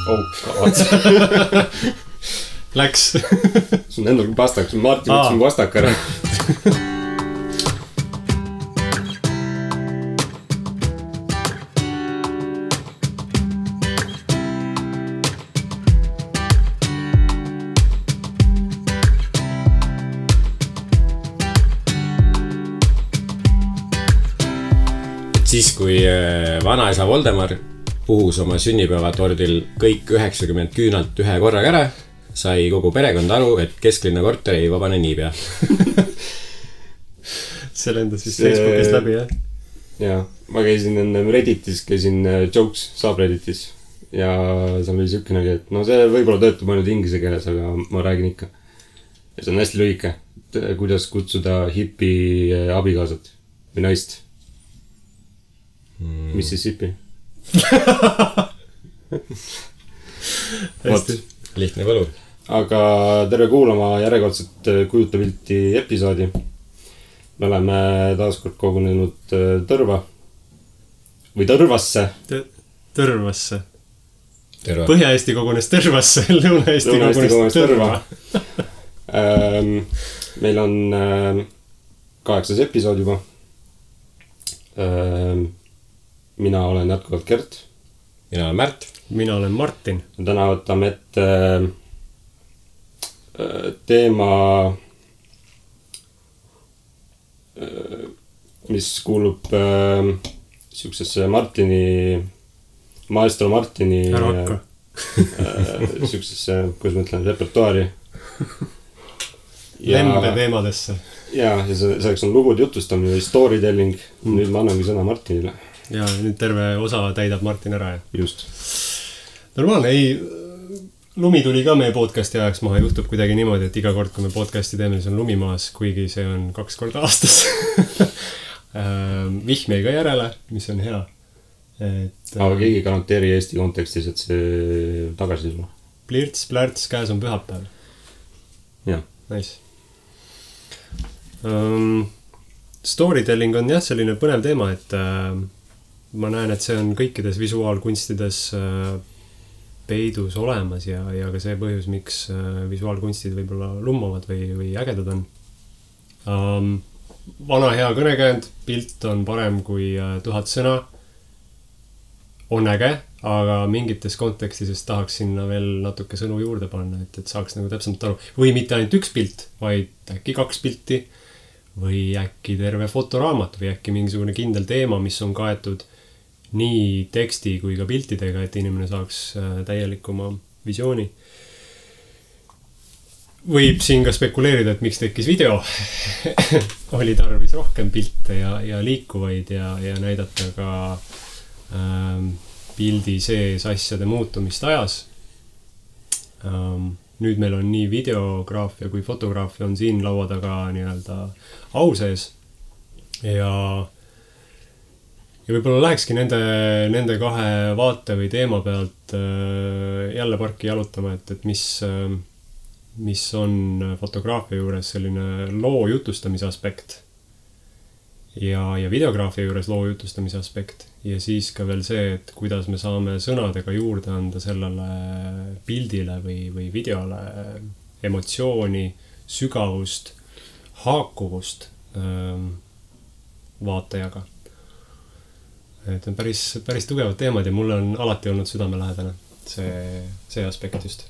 Oh god. Läks. Sul on endal vastak, sul Martin võttis mu vastak ära. Siis kui vanaisa Voldemar puhus oma sünnipäevatordil kõik 90 küünalt ühe korraga ära, sai kogu perekond aru, et kesklinna korter ei vabane niipea. See lendas vist Facebookist läbi, jah? Jaa, ma käisin enne Redditis, käisin Jokes subredditis ja seal oli siukenegi, et no see võib-olla töötab ainult inglise keeles, aga ma räägin ikka. Ja see on hästi lühike, kuidas kutsuda hipi abikaasat või naist. Mississippi. Hästi. Lihtne võlu. Aga tere kuulama järjekordset Kujuta pilti episoodi. Me oleme taaskord kogunenud Tõrva. Või Tõrvasse. Tõrvasse. Terva. Põhja-Eesti kogunes Tõrvasse, Lõuna-Eesti kogunes Tõrva. Meil on 8. episood juba. Mina olen jätkuvalt Gert. Mina olen Märt. Mina olen Martin. Täna võtame ette teema, mis kuulub siuksesse maestro Martini siuksesse, kuidas ma ütlen, repertuaari. Lembe teemadesse. Ja selleks on lugude jutustamine või storytelling. Nüüd ma annangi sõna Martinile. Ja nüüd terve osa täidab Martin ära. Just. Normaalne, ei, lumi tuli ka meie podcasti ajaks maha. Juhtub kuidagi niimoodi, et iga kord, kui me podcasti teeme, siis on lumi maas, kuigi see on 2 korda aastas. Vihm jäi ka järele, mis on hea. Aga keegi garanteeri Eesti kontekstis, et see tagasi sulle. Plirts, plärts, käes on pühapäev. Jah. Nice. Storytelling on jah selline põnev teema, et ma näen, et see on kõikides visuaalkunstides peidus olemas ja ka see põhjus, miks visuaalkunstid võib-olla lummavad või ägedad on. Vana hea kõnekäend, pilt on parem kui 1000 sõna. On äge, aga mingites kontekstides tahaks sinna veel natuke sõnu juurde panna, et saaks nagu täpsemalt aru. Või mitte ainult üks pilt, vaid äkki 2 pilti või äkki terve fotoraamat või äkki mingisugune kindel teema, mis on kaetud nii teksti kui ka piltidega, et inimene saaks täielikuma visiooni. Võib siin ka spekuleerida, et miks tekkis video. Oli tarvis rohkem pilte ja liikuvaid ja näidata ka pildi sees asjade muutumist ajas. Nüüd meil on nii videograafia kui fotograafia on siin laua taga nii-öelda au sees ja võib-olla lähekski nende 2 vaate või teema pealt jälle parki jalutama, et mis on fotograafia juures selline loo jutustamise aspekt ja videograafia juures loo jutustamise aspekt ja siis ka veel see, et kuidas me saame sõnadega juurde anda sellele pildile või videole emotsiooni, sügavust, haakuvust vaatajaga. Et on päris tugevad teemad ja mulle on alati olnud südamelähedane see aspekt just.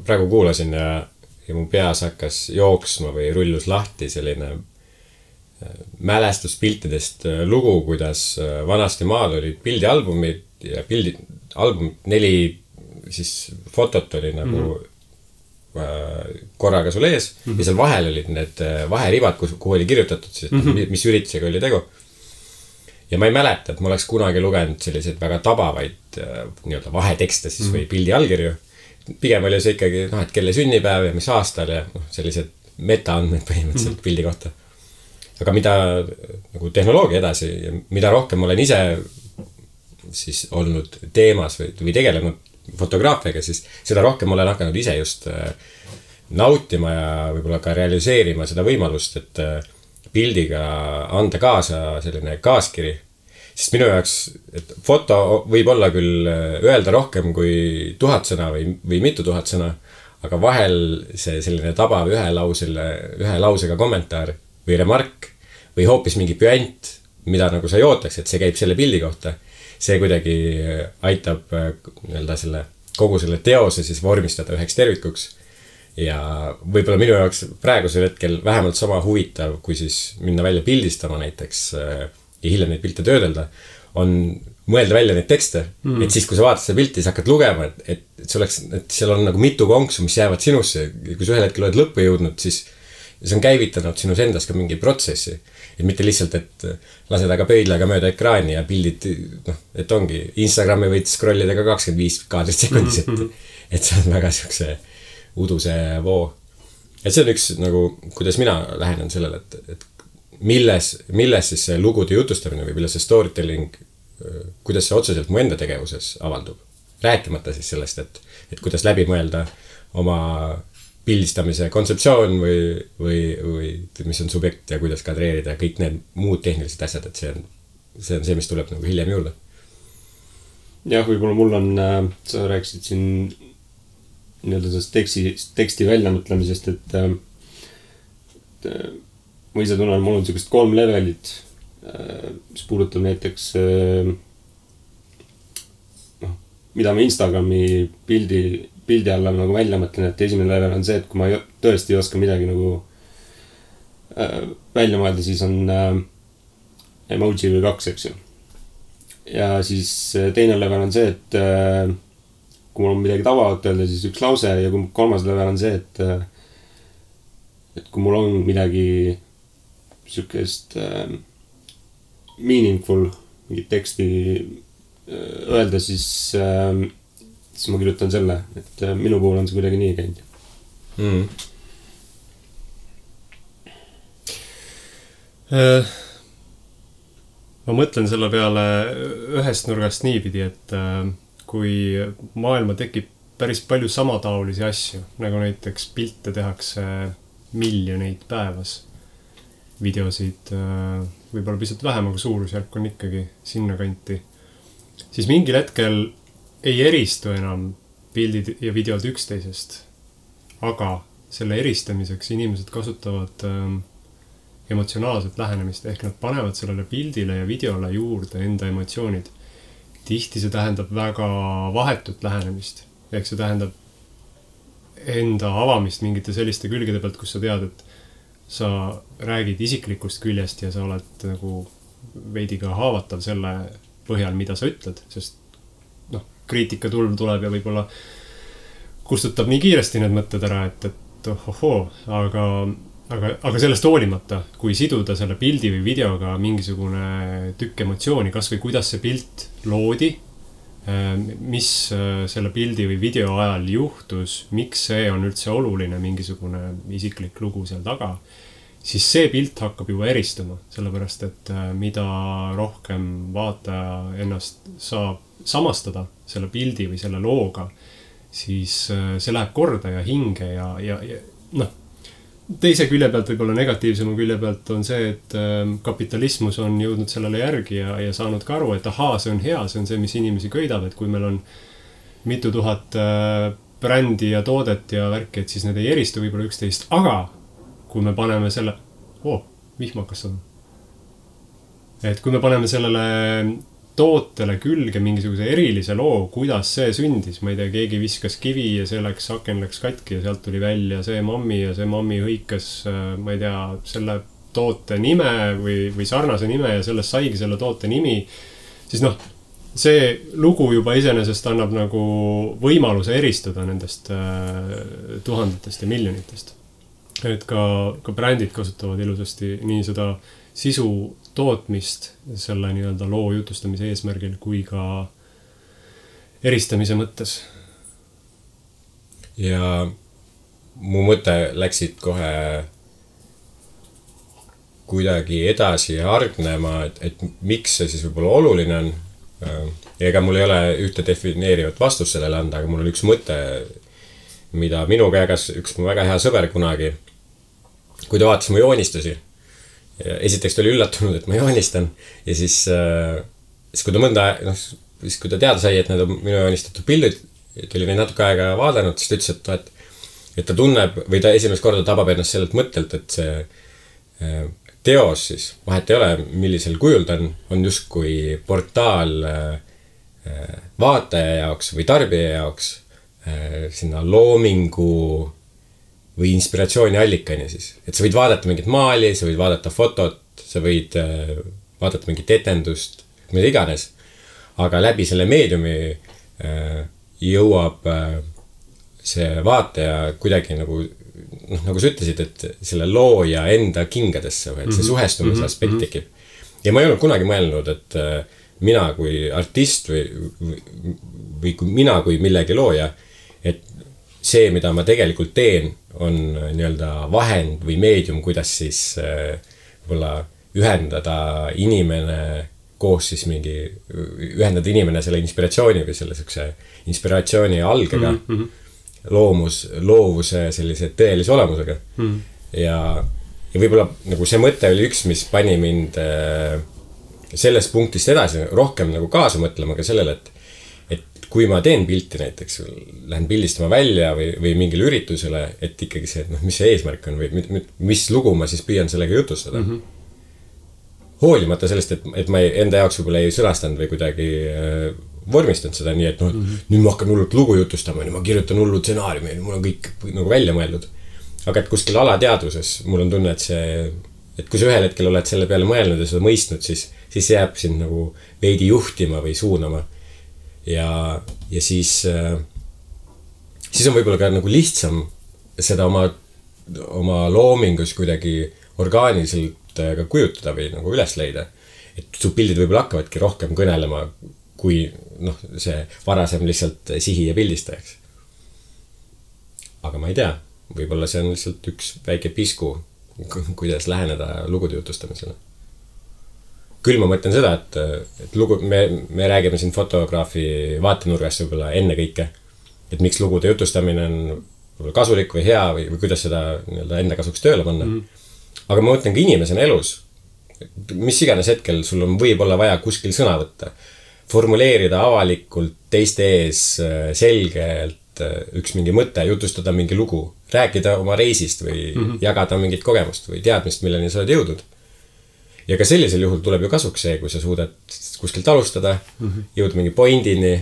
Praegu kuulasin ja mu peas hakkas jooksma või rullus lahti selline mälestuspiltidest lugu, kuidas vanasti maal olid pildialbumid ja albumid 4 siis fotot oli nagu korraga sul ees ja seal vahel olid need vaheribad, kuhu oli kirjutatud siis, mis üritusega oli tegu. Ja ma ei mäleta, et ma oleks kunagi lugenud selliseid väga tabavaid nii-öelda vahetekste siis või pildi allkirju. Pigem oli see ikkagi, et kelle sünnipäev ja mis aastal ja sellised metaandmed põhimõtteliselt pildi kohta. Aga mida nagu tehnoloogia edasi ja mida rohkem olen ise siis olnud teemas või tegelenud fotograafiaga, siis seda rohkem olen hakanud ise just nautima ja võib-olla ka realiseerima seda võimalust, et pildiga anda kaasa selline kaaskiri sest minu jaoks, et foto võib olla küll öelda rohkem kui 1000 sõna või mitu tuhat sõna, aga vahel see selline tabav ühe lausega kommentaar või remark või hoopis mingi püant, mida nagu sa ei ootaks, et see käib selle pildi kohta. See kuidagi aitab nii-öelda kogu selle teose siis vormistada üheks tervikuks. Ja võib-olla minu jaoks praegusel hetkel vähemalt sama huvitav, kui siis minna välja pildistama näiteks ja hiljem neid pilte töödelda, on mõelda välja neid tekste. Et siis, kui sa vaatad seda pilti, siis hakkad lugema, et seal on nagu mitu konksu, mis jäävad sinusse. Ja kui sa ühel hetkel oled lõppu jõudnud, siis see on käivitanud sinus endas ka mingi protsessi. Et mitte lihtsalt, et lased aga pöidlaga mööda ekraani ja pildid, et ongi Instagrami võid scrollida ka 25 kaadrit sekundis, et see on väga siukse uduse voo. Et see on üks nagu, kuidas mina lähenen sellele, et milles siis see lugude jutustamine või milles see storytelling, kuidas see otseselt mu enda tegevuses avaldub. Rääkimata siis sellest, et kuidas läbi mõelda oma pildistamise kontseptsioon või mis on subjekt ja kuidas kadreerida kõik need muud tehnilised asjad, et see on see, mis tuleb nagu hiljem juurde. Jah, võib-olla mul on, sa rääkisid siin nii-öelda sellest teksti väljamõtlemisest, et ma ise tunnen, mul on sellised 3 levelit, mis puudutab näiteks mida ma Instagrami pildi alla nagu välja mõtlen, et esimene level on see, et kui ma tõesti ei oska midagi nagu välja mõelda, siis on emoji või 2, eks ju. Ja siis teine level on see, et kui mul on midagi tabavat öelda, siis üks lause, ja kui 3. level on see, et kui mul on midagi sükest meaningful, mingit teksti öelda, siis ma kirjutan selle, et minu puhul on see kuidagi nii käinud. Ma mõtlen selle peale ühest nurgast niipidi, et kui maailma tekib päris palju samataolisi asju, nagu näiteks pilte tehakse miljoneid päevas, videosid võib-olla pisut vähem, aga suurusjärk on ikkagi sinna kanti, siis mingil hetkel ei eristu enam pildid ja videod üksteisest, aga selle eristamiseks inimesed kasutavad emotsionaalset lähenemist, ehk nad panevad sellele pildile ja videole juurde enda emotsioonid. Tihti see tähendab väga vahetut lähenemist, ehk see tähendab enda avamist mingite selliste külgede pealt, kus sa tead, et sa räägid isiklikust küljest ja sa oled nagu veidi ka haavatav selle põhjal, mida sa ütled, sest kriitika tulv tuleb ja võib-olla kustutab nii kiiresti need mõtted ära, et ohohoo, aga sellest hoolimata, kui siduda selle pildi või videoga mingisugune tükk emotsiooni, kas või kuidas see pilt loodi, mis selle pildi või video ajal juhtus, miks see on üldse oluline, mingisugune isiklik lugu seal taga, siis see pilt hakkab juba eristuma, sellepärast et mida rohkem vaataja ennast saab samastada selle pildi või selle looga, siis see läheb korda ja hinge ja teise külje pealt, võib-olla negatiivsema külje pealt on see, et kapitalismus on jõudnud sellele järgi ja saanud ka aru, et ahaa, see on hea, see on see, mis inimesi köidab, et kui meil on mitu tuhat brändi ja toodet ja värki, et siis need ei eristu võib-olla üksteist, aga kui me paneme selle, vihmakas on. Et kui me paneme sellele tootele külge mingisuguse erilise loo, kuidas see sündis, ma ei tea, keegi viskas kivi ja see aken läks katki ja sealt tuli välja see mammi hõikas, ma ei tea, selle toote nime või sarnase nime ja sellest saigi selle toote nimi, siis see lugu juba iseenesest annab nagu võimaluse eristuda nendest tuhandetest ja miljonitest. Et ka brändid kasutavad ilusasti nii seda sisu tootmist selle nii-öelda loo jutustamise eesmärgil kui ka eristamise mõttes. Ja mu mõte läksid kohe kuidagi edasi ja hargnema, et miks see siis võib-olla oluline on. Ega mul ei ole ühte defineerivat vastust sellele anda, aga mul on üks mõte, mida minuga jagas üks mu väga hea sõber kunagi, kui ta vaatas mu joonistusi. Esiteks ta oli üllatunud, et ma joonistan ja siis siis kui ta mõnda, siis kui ta teada sai, et need on minu joonistatud pildid, et oli neid natuke aega vaadanud, siis ta ütles, et ta tunneb või ta esimest korda tabab ennast sellelt mõttelt, et see teos siis, vahet ei ole, millisel kujul ta on justkui portaal vaataja jaoks või tarbija jaoks sinna loomingu või inspiratsiooni allikani siis. Et sa võid vaadata mingit maali, sa võid vaadata fotot, sa võid vaadata mingit etendust, mida iganes. Aga läbi selle meediumi jõuab see vaataja kuidagi nagu sa ütlesid, et selle looja enda kingadesse, et see suhestumise aspekt tekib. Ja ma ei olnud kunagi mõelnud, et mina kui artist või mina kui millegi looja, et see, mida ma tegelikult teen, on nii-öelda vahend või meedium, kuidas siis võib-olla ühendada inimene koos siis ühendada inimene selle inspiratsiooni või selle inspiratsiooni algega, loovuse sellise tõelise olemusega. Ja võib-olla nagu see mõte oli üks, mis pani mind sellest punktist edasi rohkem nagu kaasa mõtlema ka sellele, et kui ma teen pilti näiteks, lähen pildistama välja või mingile üritusele, et ikkagi see, et mis see eesmärk on või mis lugu ma siis püüan sellega jutustada. Hoolimata sellest, et ma enda jaoks võib-olla ei sõnastanud või kuidagi vormistanud seda nii, et nüüd ma hakkan hullult lugu jutustama, nüüd ma kirjutan hullu stsenaariumi, mul on kõik nagu välja mõeldud. Aga et kuskil alateadvuses mul on tunne, et kui sa ühel hetkel oled selle peale mõelnud ja seda mõistnud, siis jääb sind nagu veidi juhtima või suunama. Ja siis on võib-olla ka nagu lihtsam seda oma loomingus kuidagi orgaaniliselt ka kujutada või nagu üles leida. Et su pildid võib-olla hakkavadki rohkem kõnelema kui see varasem lihtsalt sihi ja pildistajaks. Aga ma ei tea, võib-olla see on lihtsalt üks väike pisku, kuidas läheneda lugude jutustamisele. Küll ma mõtlen seda, et lugu, me räägime siin fotograafi vaatenurgast võib-olla enne kõike, et miks lugude jutustamine on kasulik või hea või kuidas seda enda kasuks tööle panna. Aga ma mõtlen ka inimesena elus, mis iganes hetkel sul on võib-olla vaja kuskil sõna võtta, formuleerida avalikult teiste ees selgelt üks mingi mõte, jutustada mingi lugu, rääkida oma reisist või jagada mingit kogemust või teadmist, milleni sa oled jõudnud. Ja ka sellisel juhul tuleb ju kasuks see, kui sa suudad kuskilt alustada, jõuda mingi pointini.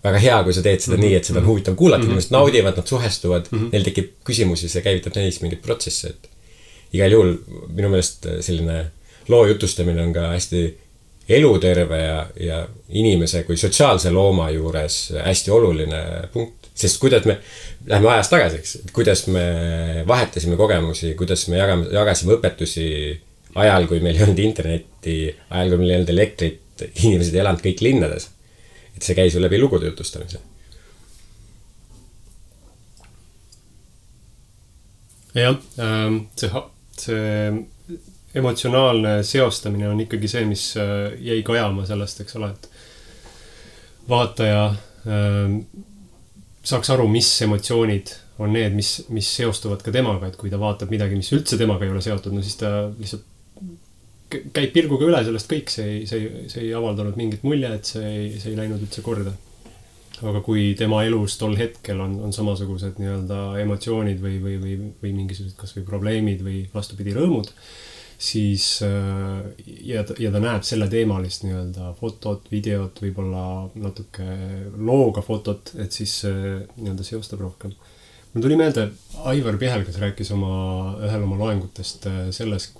Väga hea, kui sa teed seda nii, et seda on huvitav kuulata, inimesed naudivad, nad suhestuvad, neil tekib küsimusi, see käivitab neis mingit protsessi. Igal juhul minu meelest selline loo jutustamine on ka hästi eluterve ja inimese kui sotsiaalse looma juures hästi oluline punkt. Sest kuidas me läheme ajas tagasi, kuidas me vahetasime kogemusi, kuidas me jagasime õpetusi ajal, kui meil ei olnud internetti, ajal, kui meil ei olnud elektrit, inimesed ei elanud kõik linnades. Et see käis ju läbi lugude jutustamise. Jah, see emotsionaalne seostamine on ikkagi see, mis jäi kajama sellest, eks ole, et vaataja saaks aru, mis emotsioonid on need, mis seostuvad ka temaga, et kui ta vaatab midagi, mis üldse temaga ei ole seotud, no siis ta lihtsalt käib pilguga üle sellest kõik, see ei avaldanud mingit mulje, et see ei läinud üldse korda. Aga kui tema elus tol hetkel on samasugused nii-öelda emotsioonid või mingisugused kas või probleemid või vastupidi rõõmud, siis ja ta näeb selle teemalist nii-öelda fotot, videot, võib-olla natuke looga fotot, et siis nii-öelda seostab rohkem. Mul tuli meelde, Aivar Pihelgas rääkis ühel oma loengutest sellest,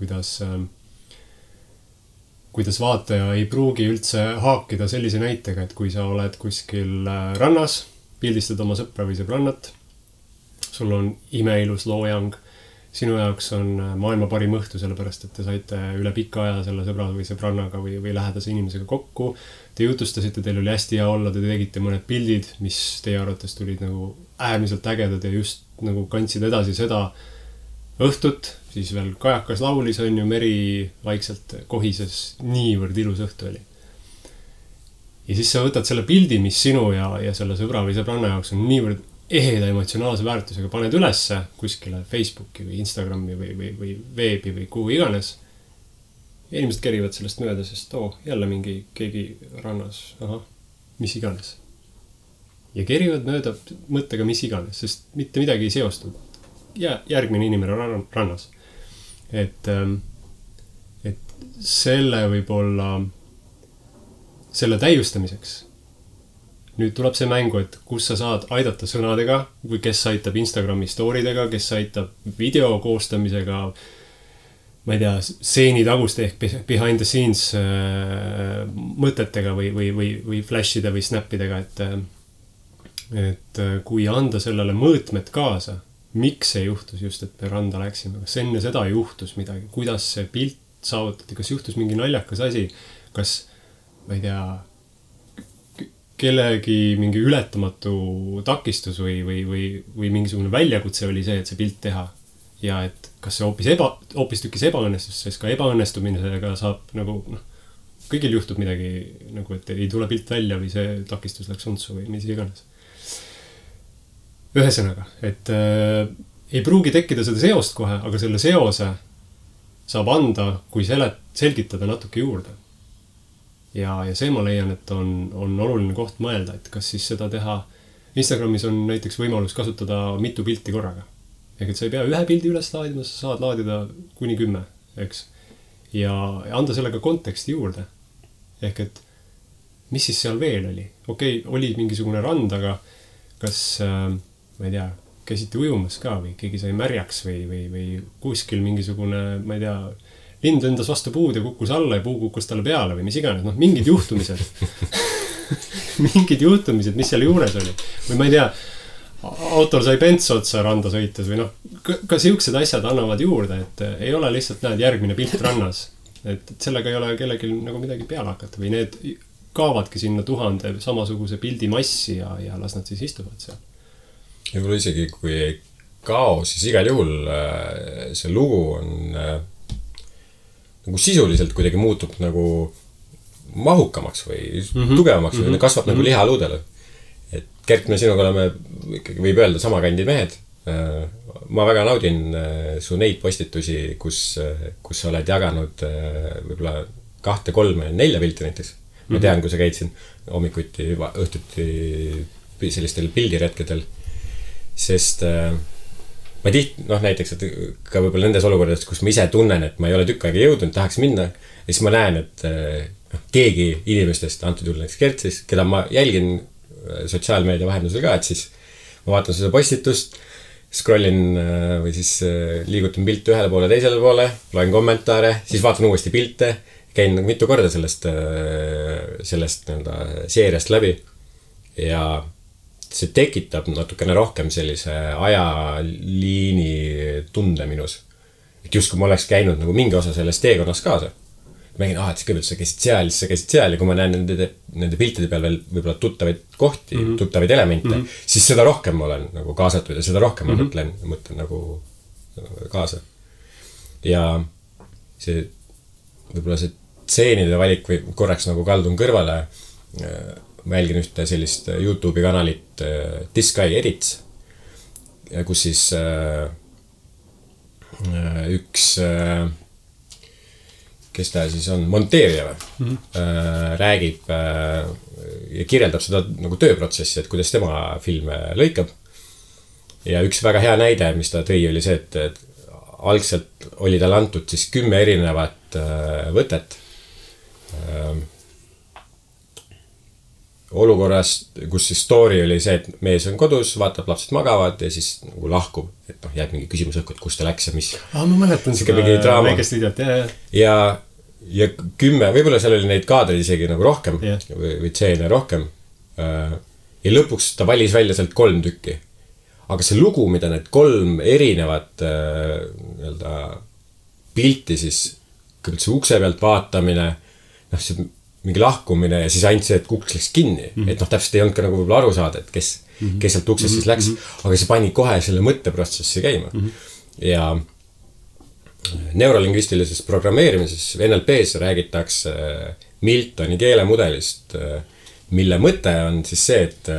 kuidas vaataja ei pruugi üldse haakida sellise näitega, et kui sa oled kuskil rannas, pildistad oma sõpra või sõbrannat, sul on imeilus loojang, sinu jaoks on maailma parim õhtu, sellepärast, et te saite üle pika aja selle sõbra või sõbrannaga või lähedase inimesega kokku, te jutustasite, teil oli hästi hea olla, te tegite mõned pildid, mis teie arvates tulid nagu äärmiselt ägedad ja just nagu kandsid edasi seda õhtut, siis veel kajakas laulis on ju, meri vaikselt kohises, niivõrd ilus õhtu oli. Ja siis sa võtad selle pildi, mis sinu ja selle sõbra või sõbranna jaoks on niivõrd eheda emotsionaalse väärtusega, paned ülesse kuskile Facebooki või Instagrami või veebi või kuhu iganes. inimesed kerivad sellest mööda, sest jälle keegi rannas, mis iganes. Ja kerivad mööda mõttega mis iganes, sest mitte midagi ei seostu. Järgmine inimene rannas. Et selle võib-olla, selle täiustamiseks. Nüüd tuleb see mängu, et kus sa saad aidata sõnadega, või kes aitab Instagrami storidega, kes aitab video koostamisega, ma ei tea, seeni taguste ehk behind the scenes mõtetega või flashide või snappidega, et kui anda sellele mõõtmed kaasa, miks see juhtus just, et me randa läksime, kas enne seda juhtus midagi, kuidas see pilt saavutati, kas juhtus mingi naljakas asi, kas, ma ei tea, kellegi mingi ületamatu takistus või mingisugune väljakutse oli see, et see pilt teha. Ja et kas see hoopis tükis ebaõnnestus, sest ka ebaõnnestumisega saab nagu, kõigil juhtub midagi, nagu, et ei tule pilt välja või see takistus läks untsu või mis iganes. Ühesõnaga, et ei pruugi tekkida seda seost kohe, aga selle seose saab anda, kui selgitada natuke juurde. Ja see ma leian, et on oluline koht mõelda, et kas siis seda teha. Instagramis on näiteks võimalus kasutada mitu pilti korraga. Ehk et sa ei pea ühe pildi üles laadima, sa saad laadida kuni 10, eks. Ja anda sellega konteksti juurde. Ehk et mis siis seal veel oli? Okei, oli mingisugune rand, aga kas, ma ei tea, käisite ujumas ka või keegi sai märjaks või kuskil mingisugune, ma ei tea, lind lendas vastu puud ja kukkus alla ja puu kukkus talle peale või mis iganes. Mingid juhtumised. Mingid juhtumised, mis seal juures oli. Või ma ei tea, autol sai pents otsa randa sõites või ka siuksed asjad annavad juurde, et ei ole lihtsalt näed järgmine pilt rannas. Et sellega ei ole kellelgi nagu midagi peale hakata või need kaavadki sinna 1000 samasuguse pildi massi ja las nad siis istuvad seal. Ja võib-olla isegi kui ei kao, siis igal juhul see lugu on nagu sisuliselt kuidagi muutub nagu mahukamaks või tugevamaks või kasvab nagu lihaluudele. Et Gert, me sinuga oleme ikkagi võib öelda sama kandi mehed. Ma väga naudin su neid postitusi, kus sa oled jaganud võib-olla 2, 3, 4 pilti näiteks. Ma tean, kui sa käid siin hommikuti, õhtuti sellistel pildiretkedel. Sest ma näiteks, et ka võib-olla nendes olukordades, kus ma ise tunnen, et ma ei ole tükk aega jõudnud, tahaks minna, ja siis ma näen, et keegi inimestest, antud juhul näiteks Gert siis, keda ma jälgin sotsiaalmeedia vahendusel ka, et siis ma vaatan seda postitust, scrollin või siis liigutan pilte ühele poole, teisele poole, loen kommentaare, siis vaatan uuesti pilte, käin nagu mitu korda sellest seeriast läbi ja see tekitab natukene rohkem sellise ajaliini tunde minus. Et just kui ma oleks käinud nagu mingi osa sellest teekonnas kaasa. Ma nägin, et kõigepealt sa käisid seal ja kui ma näen nende piltide peal veel võib-olla tuttavaid kohti, tuttavaid elemente, siis seda rohkem ma olen nagu kaasatud ja seda rohkem ma mõtlen nagu kaasa. Ja see võib-olla see tseenide valik või korraks nagu kaldun kõrvale, ma jälgin ühte sellist YouTube'i kanalit This Guy Edits, kus siis üks, kes ta siis on, monteerija või, räägib ja kirjeldab seda nagu tööprotsessi, et kuidas tema filme lõikab. Ja üks väga hea näide, mis ta tõi, oli see, et algselt oli tal antud siis 10 erinevat võtet olukorras, kus siis story oli see, et mees on kodus, vaatab, lapsed magavad ja siis nagu lahkub, et jääb mingi küsimus õhku, et kus ta läks ja mis. Ma mäletan seda väikest videot, ja 10, võib-olla seal oli neid kaadreid isegi nagu rohkem või tseene rohkem. Ja lõpuks ta valis välja sealt 3 tükki. Aga see lugu, mida need 3 erinevat pilti siis, kõigepealt see ukse pealt vaatamine, see mingi lahkumine ja siis ainult see, et uks läks kinni. Et täpselt ei olnud ka nagu võib-olla aru saada, et kes sealt uksest siis läks. Aga see pani kohe selle mõtteprotsessi käima. Ja neurolingvistilises programmeerimises NLP-s räägitakse Miltoni keelemudelist, mille mõte on siis see, et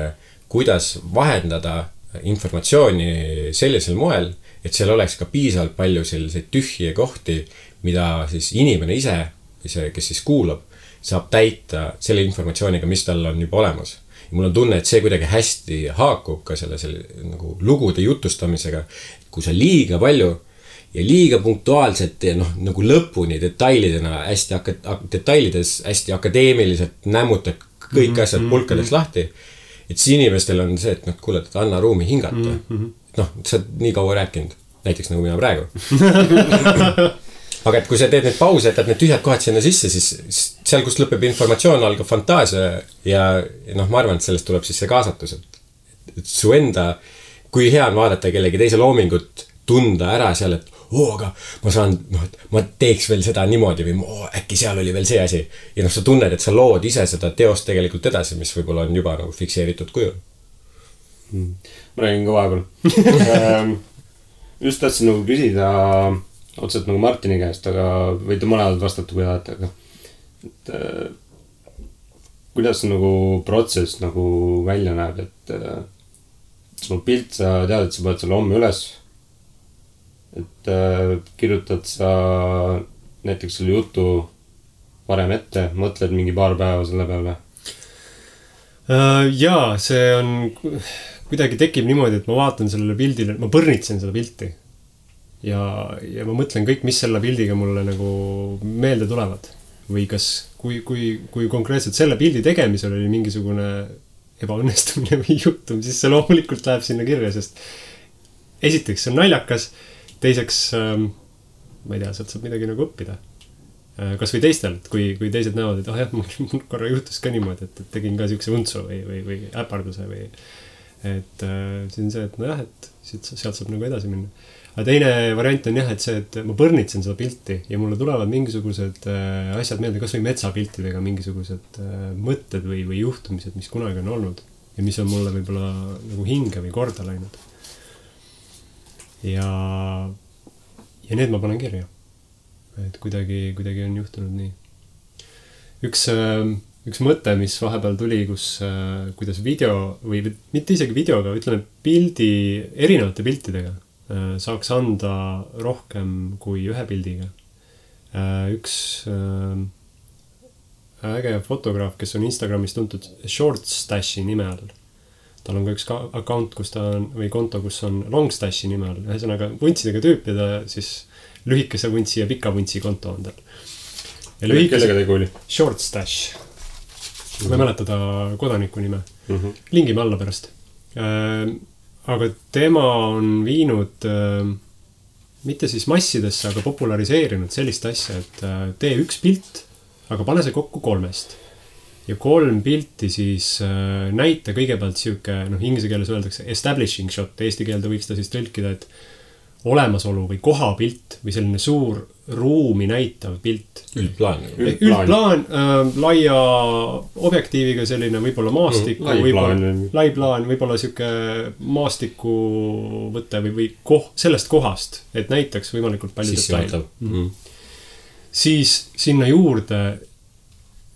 kuidas vahendada informatsiooni sellisel moel, et seal oleks ka piisavalt palju selliseid tühje kohti, mida siis inimene ise see, kes siis kuulab, saab täita selle informatsiooniga, mis tal on juba olemas. Ja mul on tunne, et see kuidagi hästi haakub ka selle nagu lugude jutustamisega, kui sa liiga palju ja liiga punktuaalselt ja nagu lõpuni detailidena detailides hästi akadeemiliselt nämmutad kõik asjad pulkadeks lahti, et siis inimestel on see, et kuule, et anna ruumi hingata. Sa oled nii kaua rääkinud, näiteks nagu mina praegu. Aga et kui sa teed need pause, et need tühjad kohad sinna sisse, siis seal, kus lõpeb informatsioon, algab fantaasia ja ma arvan, et sellest tuleb siis see kaasatus, et su enda, kui hea on vaadata kellegi teise loomingut, tunda ära seal, et aga ma saan, et ma teeks veel seda niimoodi või äkki seal oli veel see asi. Ja sa tunned, et sa lood ise seda teost tegelikult edasi, mis võib-olla on juba nagu fikseeritud kujul. Ma räägin ka vahepeal. Just tahtsin nagu küsida otseselt nagu Martini käest, aga võite mõned vastata, kui tahate, aga kuidas nagu protsess nagu välja näeb, et sul pilt, sa tead, et sa paned selle homme üles, et kirjutad sa näiteks selle jutu varem ette, mõtled mingi paar päeva selle peale? Jaa, see on kuidagi tekib niimoodi, et ma vaatan sellele pildile, ma põrnitsen seda pilti ja ma mõtlen kõik, mis selle pildiga mulle nagu meelde tulevad või kas, kui konkreetselt selle pildi tegemisel oli mingisugune ebaõnnestumine või juhtum, siis see loomulikult läheb sinna kirja, sest esiteks see on naljakas, teiseks ma ei tea, sealt saab midagi nagu õppida. Kas või teistel, kui teised näevad, et jah, mul korra juhtus ka niimoodi, et tegin ka siukse untsu või äparduse või et siin see, et nojah, et sealt saab nagu edasi minna. Aga teine variant on jah, et see, et ma põrnitsen seda pilti ja mulle tulevad mingisugused asjad meelde, kas või metsapiltidega mingisugused mõtted või juhtumised, mis kunagi on olnud ja mis on mulle võib-olla nagu hinge või korda läinud. Ja need ma panen kirja. Et kuidagi on juhtunud nii. Üks mõte, mis vahepeal tuli, kuidas video või mitte isegi videoga, ütleme erinevate piltidega saaks anda rohkem kui ühe pildiga. Üks äge fotograaf, kes on Instagramis tuntud Shortstashi nime all. Tal on ka üks account, või konto, kus on Longstashi nime all. Ühesõnaga vuntsidega tüüp ja ta siis lühikese vuntsi ja pika vuntsi konto on tal. Kellega tegu oli? Shortstash. Ma ei mäleta ta kodaniku nime. Lingime alla pärast. Aga tema on viinud mitte siis massidesse, aga populariseerinud sellist asja, et tee üks pilt, aga pane see kokku 3. Ja 3 pilti siis näita kõigepealt siuke, inglise keeles öeldakse establishing shot, eesti keelde võiks ta siis tõlkida, et olemasolu või kohapilt või selline suur ruumi näitav pilt. Üldplaan, laia objektiiviga selline võib-olla maastiku, lai plaan, võib-olla siuke maastiku võte või sellest kohast, et näitaks võimalikult palju detaile. Siis sinna juurde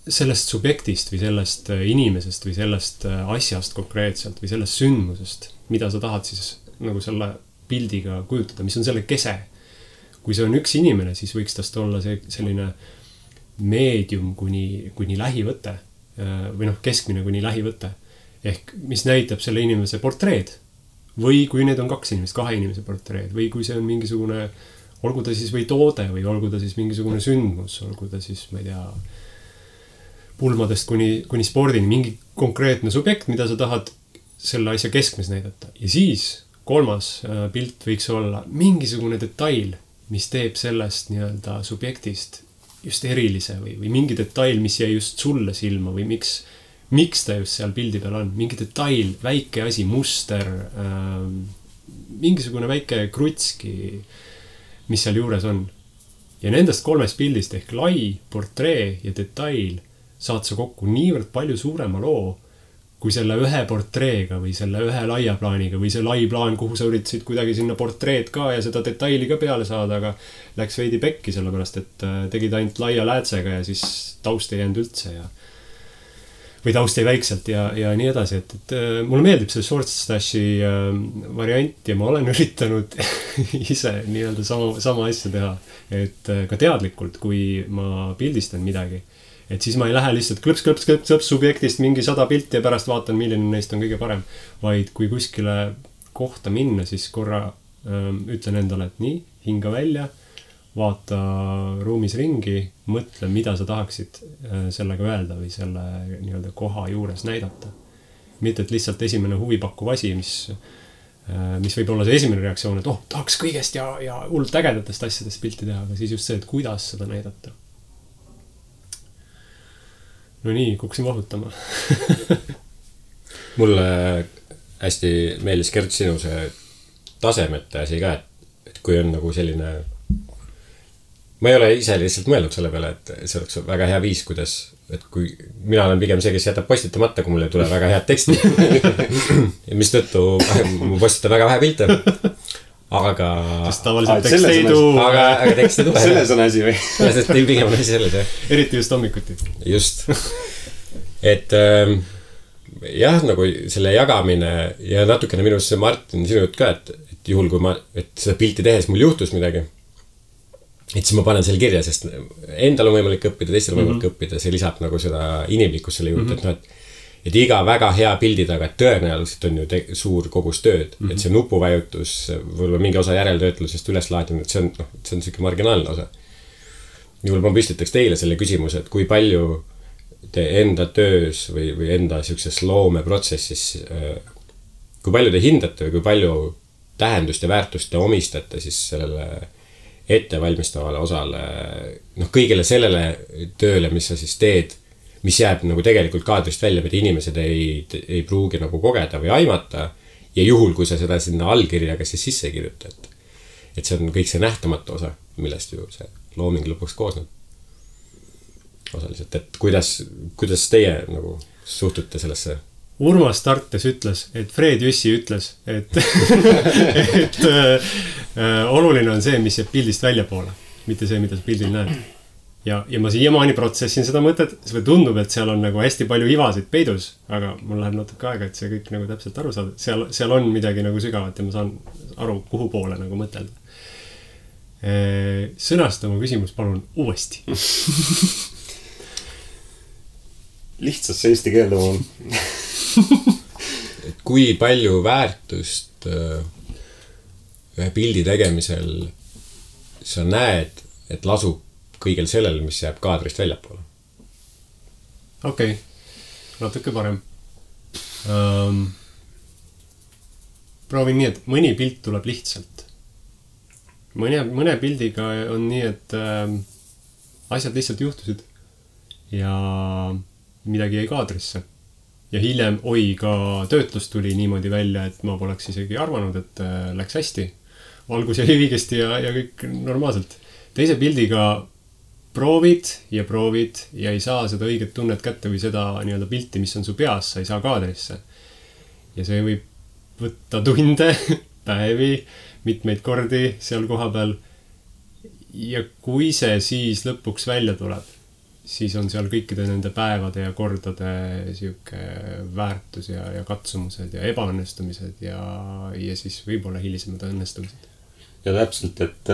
sellest subjektist või sellest inimesest või sellest asjast konkreetselt või sellest sündmusest, mida sa tahad siis nagu selle pildiga kujutada, mis on selle kese. Kui see on üks inimene, siis võiks tast olla selline meedium kuni lähivõte või keskmine kuni lähivõte. Ehk mis näitab selle inimese portreed või kui need on 2 inimest, 2 inimese portreed või kui see on mingisugune, olgu ta siis või toode või olgu ta siis mingisugune sündmus, olgu ta siis, ma ei tea, pulmadest kuni spordini, mingi konkreetne subjekt, mida sa tahad selle asja keskmes näidata. Ja siis 3. pilt võiks olla mingisugune detail, mis teeb sellest nii-öelda subjektist just erilise või mingi detail, mis jäi just sulle silma või miks ta just seal pildi peal on. Mingi detail, väike asi, muster, mingisugune väike krutski, mis seal juures on. Ja nendest 3 pildist ehk lai, portree ja detail saad sa kokku niivõrd palju suurema loo, kui selle ühe portreega või selle ühe laia plaaniga või see lai plaan, kuhu sa üritasid kuidagi sinna portreed ka ja seda detaili ka peale saada, aga läks veidi pekki, sellepärast et tegid ainult laia läätsega ja siis taust ei jäänud üldse. või taust jäi väikselt ja nii edasi, et mulle meeldib see short stashi variant ja ma olen üritanud ise nii-öelda sama asja teha, et ka teadlikult, kui ma pildistan midagi, et siis ma ei lähe lihtsalt klõps subjektist mingi 100 pilti ja pärast vaatan, milline neist on kõige parem, vaid kui kuskile kohta minna, siis korra ütlen endale, et nii, hinga välja, vaata ruumis ringi, mõtle, mida sa tahaksid sellega öelda või selle nii-öelda koha juures näidata. Mitte, et lihtsalt esimene huvipakkuv asi, mis võib olla see esimene reaktsioon, et tahaks kõigest ja hullult ägedatest asjadest pilti teha, aga siis just see, et kuidas seda näidata. No nii, kuksin vahutama. Mulle hästi meeldis Gert sinu see tasemete asi ka, et kui on nagu selline ma ei ole ise lihtsalt mõelnud selle peale, et see oleks väga hea viis, kuidas, et kui mina olen pigem see, kes jätab postitamata, kui mulle ei tule väga head teksti. Mis tõttu ma postitan väga vähe pilte. Aga sest tavaliselt tekst ei tuu. Aga tekst ei tule. Selles on asi või? Sest teil pigem on asi selles, jah. Eriti just hommikuti. Just. Et jah, nagu selle jagamine ja natukene minus see Martin sinu jutt ka, et juhul kui et seda pilti tehes mul juhtus midagi, et siis ma panen selle kirja, sest endal on võimalik õppida, teistel on võimalik õppida, see lisab nagu seda inimlikkust selle juurde, et noh, et iga väga hea pildi taga tõenäoliselt on ju suur kogus tööd, et see nupuvajutus, võib-olla mingi osa järeltöötlusest üleslaadimine, et see on selline marginaalne osa. Juhul ma püstitaks teile selle küsimuse, et kui palju te enda töös või enda sellises loomeprotsessis, kui palju te hindate või kui palju tähendust ja väärtust te omistate siis sellele ettevalmistavale osale, noh kõigele sellele tööle, mis sa siis teed, mis jääb nagu tegelikult kaadrist välja, mida inimesed ei pruugi nagu kogeda või aimata ja juhul, kui sa seda sinna allkirjaga siis sisse kirjuta, et see on kõik see nähtamatu osa, millest ju see looming lõpuks koosneb osaliselt, et kuidas teie nagu suhtute sellesse? Urmas Tartes ütles, et Fred Jüssi ütles, et oluline on see, mis jääb pildist välja poole, mitte see, mida sa pildil näed. Ja ma siiamaani protsessin seda mõtet, see tundub, et seal on nagu hästi palju ivasid peidus, aga mul läheb natuke aega, et see kõik nagu täpselt aru saada. Seal on midagi nagu sügavat ja ma saan aru, kuhu poole nagu mõtelda. Sõnasta oma küsimus palun uuesti. Lihtsasse eesti keelde on. Et kui palju väärtust ühe pildi tegemisel sa näed, et lasub kõigel sellel, mis jääb kaadrist väljapoole? Okei, natuke parem. Proovin nii, et mõni pilt tuleb lihtsalt. Mõne pildiga on nii, et asjad lihtsalt juhtusid ja midagi jäi kaadrisse. Ja hiljem, ka töötlus tuli niimoodi välja, et ma poleks isegi arvanud, et läks hästi. Valgus jäi õigesti ja kõik normaalselt. Teise pildiga proovid ja ei saa seda õiget tunnet kätte või seda nii-öelda pilti, mis on su peas, sa ei saa kaadrisse. Ja see võib võtta tunde, päevi, mitmeid kordi seal koha peal. Ja kui see siis lõpuks välja tuleb, siis on seal kõikide nende päevade ja kordade siuke väärtus ja katsumused ja ebaõnnestumised ja siis võib-olla hilisemad õnnestumised. Ja täpselt, et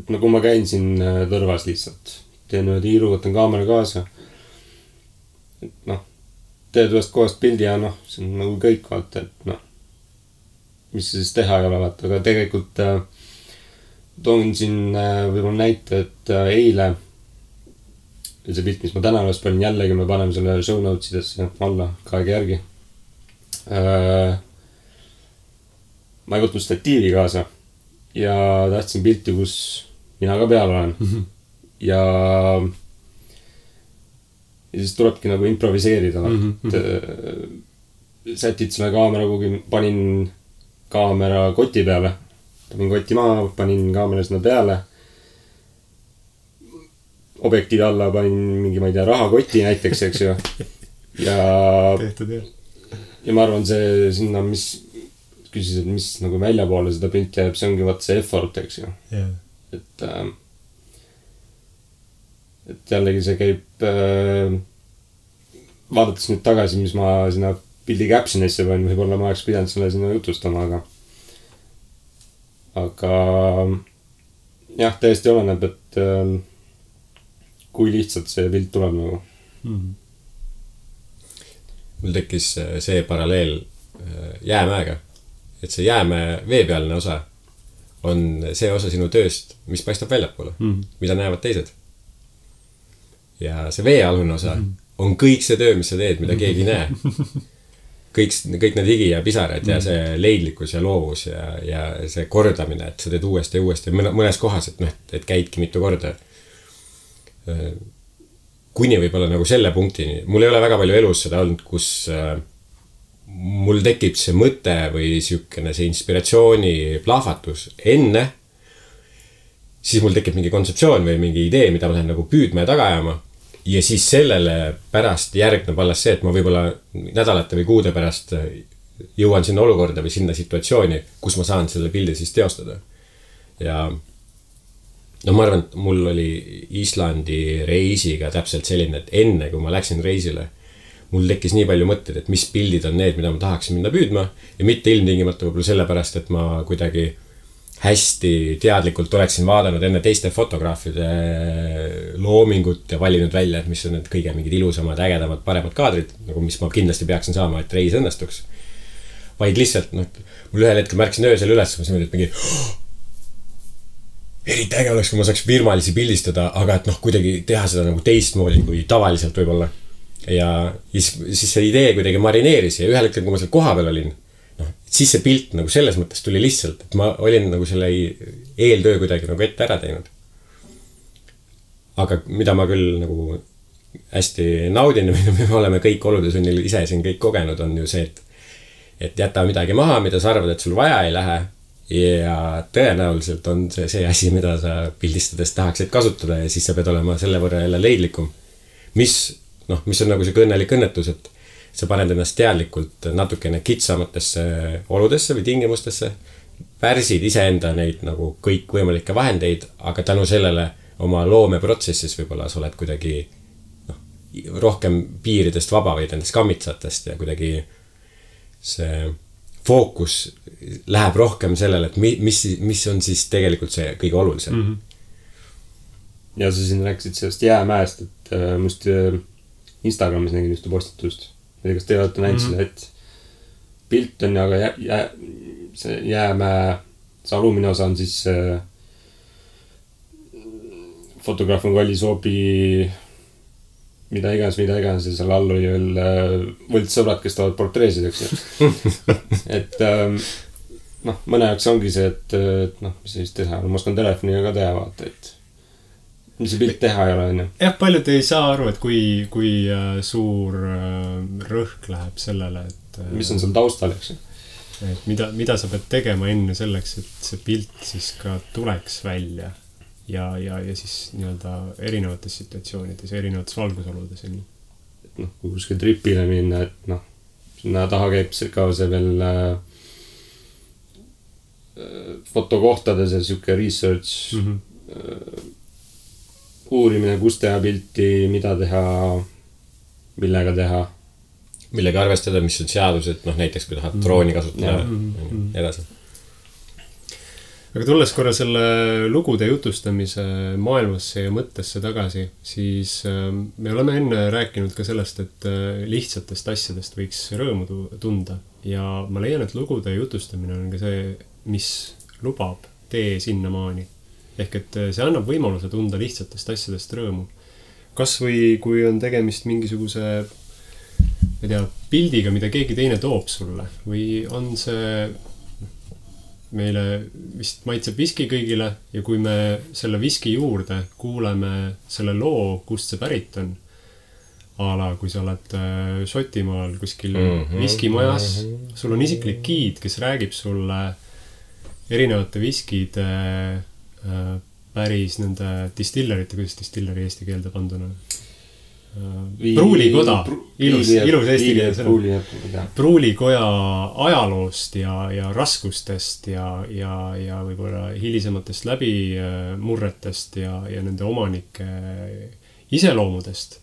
nagu ma käin siin tõrvas lihtsalt, teen ühe tiiru, võtan kaamera kaasa, et teed ühest kohast pildi ja see on nagu kõik vaata, et mis siis teha ei ole vaata, aga tegelikult toon siin võib-olla näite, et eile see pilt, mis ma täna üles panin, jällegi me paneme selle show notesidesse alla kaega järgi. Ma ei võtnud statiivi kaasa ja tahtsin pilti, kus mina ka peal olen. Ja siis tulebki nagu improviseerida. Sätid selle kaamera kuhugi, panin kaamera koti peale. Panin koti maa, panin kaamera sinna peale. Objektiivi alla panin mingi, ma ei tea, rahakoti näiteks, eks ju. Ja ma arvan, see sinna, mis küsisid, mis nagu välja poole seda pilti jääb, see ongi vaat see effort, eks ju. Et jällegi see käib vaadates nüüd tagasi, mis ma sinna pildi captionisse panin, võib-olla ma oleks pidanud selle sinna jutustama, aga jah, täiesti oleneb, et kui lihtsalt see pilt tuleb nagu. Mul tekkis see paralleel jäämäega, et see jäämäe veepealne osa on see osa sinu tööst, mis paistab väljapoole, mida näevad teised. Ja see veealune osa on kõik see töö, mis sa teed, mida keegi ei näe. Kõik need higi ja pisarad ja see leidlikkus ja loovus ja see kordamine, et sa teed uuesti ja uuesti mõnes kohas, et käidki mitu korda. Kuni võib-olla nagu selle punktini. Mul ei ole väga palju elus seda olnud, kus mul tekib see mõte või siukene see inspiratsiooni plahvatus enne, siis mul tekib mingi kontseptsioon või mingi idee, mida ma lähen nagu püüdma ja taga ajama. Ja siis sellele pärast järgneb alles see, et ma võib-olla nädalate või kuude pärast jõuan sinna olukorda või sinna situatsiooni, kus ma saan selle pildi siis teostada. Ja no ma arvan, et mul oli Islandi reisiga täpselt selline, et enne kui ma läksin reisile, mul tekkis nii palju mõtteid, et mis pildid on need, mida ma tahaksin minna püüdma ja mitte ilmtingimata võib-olla sellepärast, et ma kuidagi hästi teadlikult oleksin vaadanud enne teiste fotograafide loomingut ja valinud välja, et mis on need kõige mingid ilusamad, ägedamad, paremad kaadrid, nagu mis ma kindlasti peaksin saama, et reis õnnestuks. Vaid lihtsalt, mul ühel hetkel märksin öösel üles, ma mõtlesin, et mingi eriti äge oleks, kui ma saaks virmalisi pildistada, aga et kuidagi teha seda nagu teistmoodi kui tavaliselt võib-olla. Ja siis see idee kuidagi marineeris ja ühel hetkel, kui ma seal koha peal olin, siis see pilt nagu selles mõttes tuli lihtsalt, et ma olin nagu selle eeltöö kuidagi nagu ette ära teinud. Aga mida ma küll nagu hästi naudin ja mida me oleme kõik oludesunnil ise siin kõik kogenud, on ju see, et jäta midagi maha, mida sa arvad, et sul vaja ei lähe ja tõenäoliselt on see asi, mida sa pildistades tahaksid kasutada ja siis sa pead olema selle võrra jälle leidlikum. Mis on nagu see õnnelik õnnetus, et sa paned ennast teadlikult natukene kitsamatesse oludesse või tingimustesse, pärsid iseenda neid nagu kõik võimalikke vahendeid, aga tänu sellele oma loomeprotsessis võib-olla sa oled kuidagi rohkem piiridest vaba või nendest kammitsatest ja kuidagi see fookus läheb rohkem sellele, et mis on siis tegelikult see kõige olulisem. Ja sa siin rääkisid sellest jäämäest, et must Instagramis nägin just postitust. Kas te olete näinud seda, et pilt on, aga see jäämäe, see alumine osa on siis fotograaf on kallis hoobi mida iganes ja seal all oli veel võltssõbrad, kes tahavad portreesid, eks. Et mõne jaoks ongi see, et mis siis teha, ma oskan telefoniga ka teha vaata, et mis see pilt teha ei ole, on ju. Jah, paljud ei saa aru, et kui suur rõhk läheb sellele, et mis on seal taustal, eks. Et mida sa pead tegema enne selleks, et see pilt siis ka tuleks välja ja siis nii-öelda erinevates situatsioonides, erinevates valgusoludes. Et kui kuskil tripile minna, et sinna taha käib ka see veel fotokohtades ja siuke research uurimine, kus teha pilti, mida teha, millega teha. Millega arvestada, mis on seadused, näiteks kui tahad drooni kasutada edasi. Aga tulles korra selle lugude jutustamise maailmasse ja mõttesse tagasi, siis me oleme enne rääkinud ka sellest, et lihtsatest asjadest võiks rõõmu tunda. Ja ma leian, et lugude jutustamine on ka see, mis lubab tee sinnamaani. Ehk et see annab võimaluse tunda lihtsatest asjadest rõõmu. Kas või kui on tegemist mingisuguse pildiga, mida keegi teine toob sulle või on see meile vist maitseb viski kõigile ja kui me selle viski juurde kuuleme selle loo, kust see pärit on, kui sa oled Šotimaal kuskil viskimajas, sul on isiklik giid, kes räägib sulle erinevate viskide päris nende distillerite, kuidas distilleri eesti keelde panduna? Pruulikoda, ilus eesti keelde. Pruulikoja ajaloost ja raskustest ja võib-olla hilisematest läbimurretest ja nende omanike iseloomudest,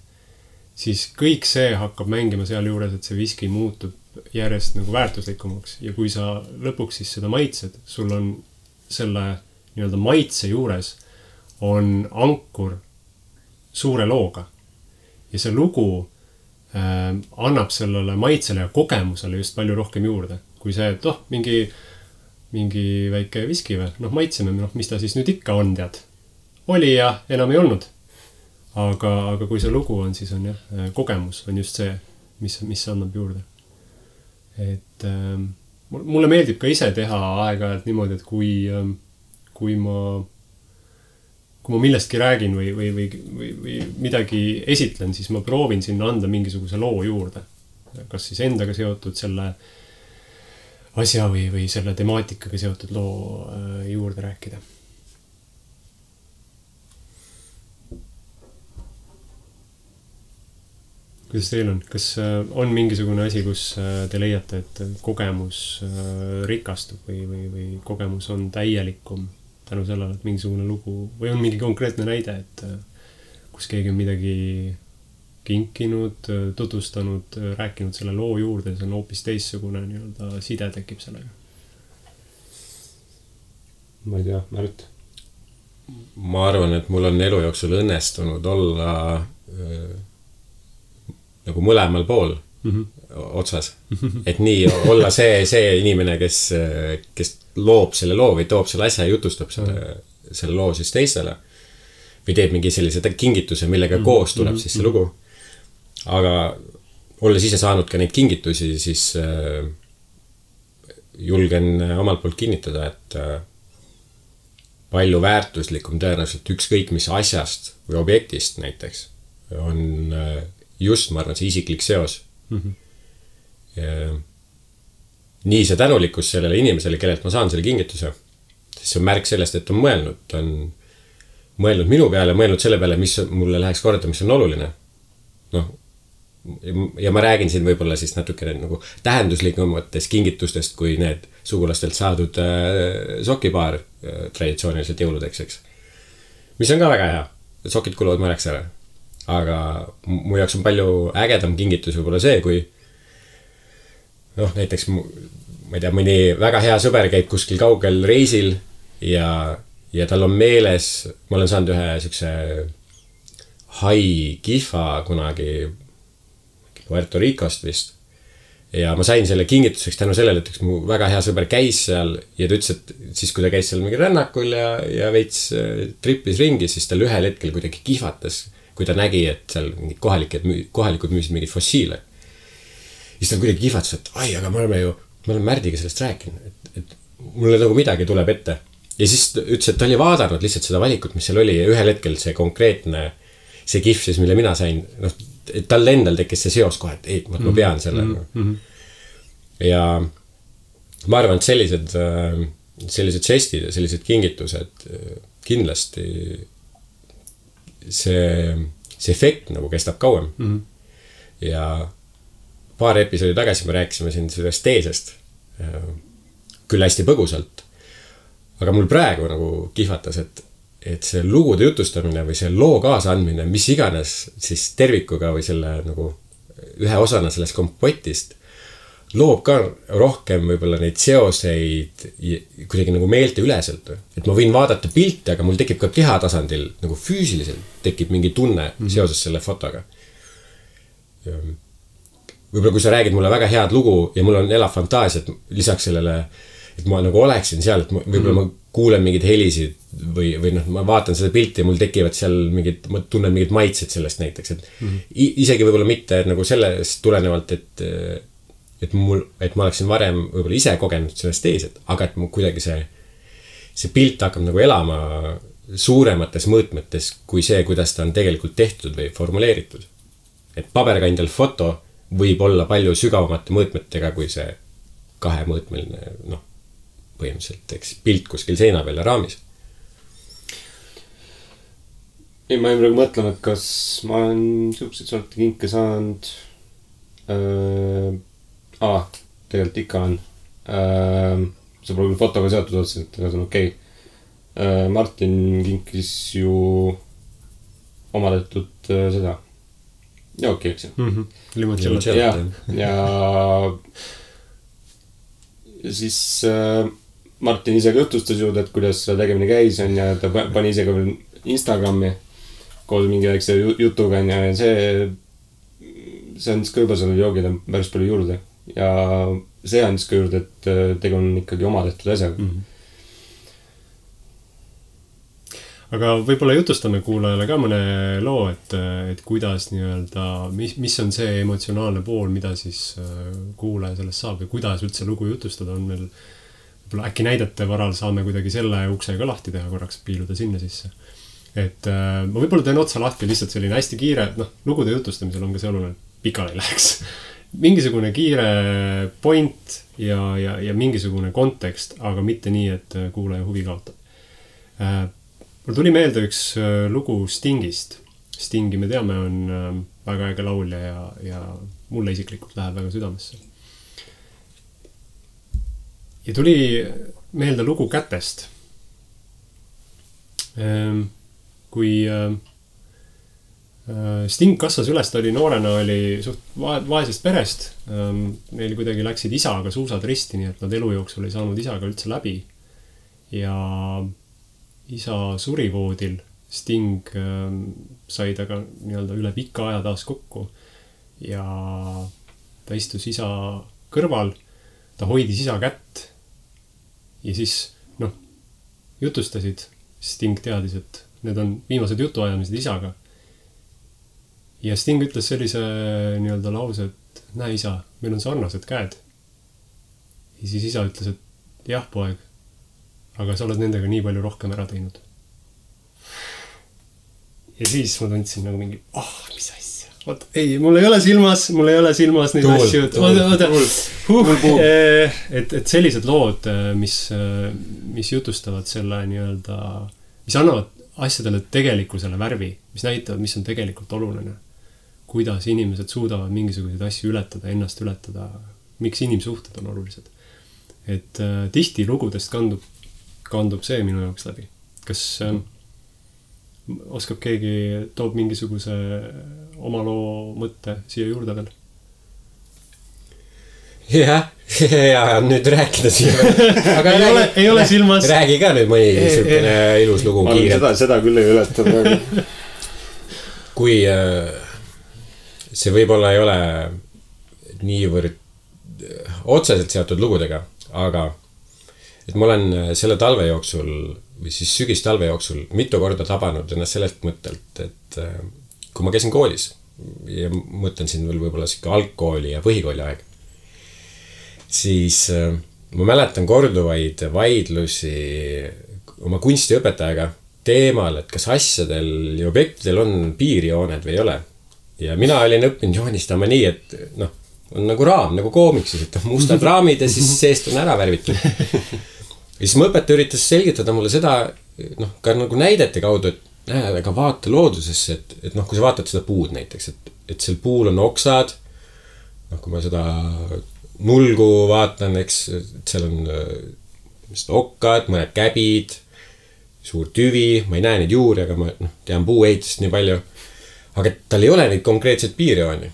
siis kõik see hakkab mängima seal juures, et see viski muutub järjest nagu väärtuslikumaks ja kui sa lõpuks siis seda maitsed, sul on selle nii-öelda maitse juures on ankur suure looga ja see lugu annab sellele maitsele ja kogemusele just palju rohkem juurde, kui see, et mingi väike viski või, maitseme, mis ta siis nüüd ikka on, tead. Oli ja enam ei olnud. Aga kui see lugu on, siis on jah, kogemus on just see, mis annab juurde. Et mulle meeldib ka ise teha aeg-ajalt niimoodi, et kui ma millestki räägin või midagi esitlen, siis ma proovin sinna anda mingisuguse loo juurde. Kas siis endaga seotud selle asja või selle temaatikaga seotud loo juurde rääkida. Kuidas teil on? Kas on mingisugune asi, kus te leiate, et kogemus rikastub või kogemus on täielikum tänu sellele, et mingisugune lugu või on mingi konkreetne näide, et kus keegi on midagi kinkinud, tutvustanud, rääkinud selle loo juurde, see on hoopis teissugune nii-öelda side tekib sellega? Ma ei tea, Märt? Ma arvan, et mul on elu jooksul õnnestunud olla nagu mõlemal pool otsas. Et nii olla see inimene, kes loob selle loo või toob selle asja ja jutustab selle loo siis teistele. Või teeb mingi sellise kingituse, millega koos tuleb siis see lugu. Aga olles ise saanud ka neid kingitusi, siis julgen omalt poolt kinnitada, et palju väärtuslikum tõenäoliselt ükskõik mis asjast või objektist näiteks on just, ma arvan, see isiklik seos. Nii see tänulikkus sellele inimesele, kellelt ma saan selle kingituse, siis see on märk sellest, et on mõelnud minu peale, mõelnud selle peale, mis mulle läheks korda, mis on oluline. Ja ma räägin siin võib-olla siis natukene nagu tähenduslikumates kingitustest kui need sugulastelt saadud sokipaar traditsiooniliselt jõuludeks, eks. Mis on ka väga hea. Sokid kuluvad mõneks ära. Aga mu jaoks on palju ägedam kingitus võib-olla see, kui näiteks ma ei tea, mõni väga hea sõber käib kuskil kaugel reisil ja tal on meeles, ma olen saanud ühe sükse hai kihva kunagi Puerto Ricost vist ja ma sain selle kingituseks tänu sellele, et üks mu väga hea sõber käis seal ja ta ütles, et siis kui ta käis seal mingi rännakul ja veits trippis ringi, siis tal ühel hetkel kuidagi kihvatas, kui ta nägi, et seal mingid kohalikud müüsid mingid fossiile. Siis ta kuidagi kihvatas, et ai, aga me oleme Märdiga sellest rääkinud, et mulle nagu midagi tuleb ette. Ja siis ütles, et ta oli vaadanud lihtsalt seda valikut, mis seal oli ja ühel hetkel see konkreetne, see kihv siis, mille mina sain, et tal endal tekkis see seos kohe, et ei, ma pean selle. Ja ma arvan, et sellised žestid ja sellised kingitused kindlasti see efekt nagu kestab kauem. Ja paar episoodi tagasi me rääkisime siin sellest teesest, küll hästi põgusalt, aga mul praegu nagu kihvatas, et see lugude jutustamine või see loo kaasandmine, mis iganes siis tervikuga või selle nagu ühe osana sellest kompotist, loob ka rohkem võib-olla neid seoseid kuidagi nagu meelte üleselt. Et ma võin vaadata pilte, aga mul tekib ka kehatasandil nagu füüsiliselt tekib mingi tunne seoses selle fotoga. Võib-olla kui sa räägid mulle väga head lugu ja mul on elav fantaasia, et lisaks sellele, et ma nagu oleksin seal, et võib-olla ma kuulen mingid helisid või ma vaatan seda pilti ja mul tekivad seal ma tunnen mingid maitsed sellest näiteks, et isegi võib-olla mitte nagu sellest tulenevalt, et ma oleksin varem võib-olla ise kogenud sellest teeset, aga et mu kuidagi see pilt hakkab nagu elama suuremates mõõtmetes kui see, kuidas ta on tegelikult tehtud või formuleeritud. Et paberkandjal foto võib olla palju sügavamate mõõtmetega kui see kahemõõtmeline, põhimõtteliselt, eks, pilt kuskil seina peal ja raamis. Ei, ma ei praegu mõtlema, et kas ma olen siukseid sorti kinke saanud tegelikult ikka on. See pole küll fotoga seotud otseselt, aga see on okei. Martin kinkis ju oma tehtud seda jooki, eks ju. Limoncello. ja siis Martin ise ka jutustas juurde, et kuidas selle tegemine käis on ja ta pani ise ka veel Instagrami koos mingi väikse jutuga on ja see andis ka juba sellele joogile päris palju juurde ja see andis ka juurde, et tegu on ikkagi oma tehtud asjaga. Aga võib-olla jutustame kuulajale ka mõne loo, et kuidas nii-öelda, mis on see emotsionaalne pool, mida siis kuulaja sellest saab ja kuidas üldse lugu jutustada on meil. Võib-olla äkki näidete varal saame kuidagi selle ukse ka lahti teha korraks, piiluda sinna sisse. Et ma võib-olla teen otsa lahti lihtsalt selline hästi kiire, lugude jutustamisel on ka see oluline, pikale ei läheks. Mingisugune kiire point ja mingisugune kontekst, aga mitte nii, et kuulaja huvi kaotab. Mul tuli meelde üks lugu Stingist. Stingi me teame on väga äge laulja ja mulle isiklikult läheb väga südamesse. Ja tuli meelde lugu Kätest. Kui Sting kasvas üles, ta oli noorena, oli suht vaesest perest. Neil kuidagi läksid isaga suusad risti, nii et nad elu jooksul ei saanud isaga üldse läbi. Ja isa suri voodil, Sting sai taga nii-öelda üle pika aja taas kokku ja ta istus isa kõrval, ta hoidis isa kätt ja siis, jutustasid, Sting teadis, et need on viimased jutuajamised isaga. Ja Sting ütles sellise nii-öelda lause, et näe isa, meil on sarnased käed. Ja siis isa ütles, et jah, poeg, aga sa oled nendega nii palju rohkem ära teinud. Ja siis ma tundsin nagu mingi, mis asja. Oot, ei, mul ei ole silmas neid asju. Et sellised lood, mis jutustavad selle nii-öelda, mis annavad asjadele tegelikkusele värvi, mis näitavad, mis on tegelikult oluline. Kuidas inimesed suudavad mingisuguseid asju ületada, ennast ületada, miks inimsuhted on olulised. Et tihti lugudest kandub see minu jaoks läbi. Kas oskab keegi, toob mingisuguse oma loo mõtte siia juurde veel? Ja nüüd rääkida siia. Aga ei ole silmas. Räägi ka nüüd mõni niisugune ilus lugu kiirelt. Seda küll ei ületada. Kui see võib-olla ei ole niivõrd otseselt seotud lugudega, aga et ma olen selle talve jooksul või siis sügistalve jooksul mitu korda tabanud ennast sellest mõttelt, et kui ma käisin koolis ja mõtlen siin veel võib-olla siuke algkooli ja põhikooli aeg, siis ma mäletan korduvaid vaidlusi oma kunstiõpetajaga teemal, et kas asjadel ja objektidel on piirjooned või ei ole. Ja mina olin õppinud joonistama nii, et on nagu raam, nagu koomiksis, et mustad raamid ja siis seest on ära värvitud. Ja siis mu õpetaja üritas selgitada mulle seda, ka nagu näidete kaudu, et aga vaata loodusesse, et kui sa vaatad seda puud näiteks, et seal puul on oksad, kui ma seda nulgu vaatan, eks, et seal on okkad, mõned käbid, suur tüvi, ma ei näe neid juuri, aga ma tean puuehitust nii palju, aga tal ei ole neid konkreetseid piirjooni.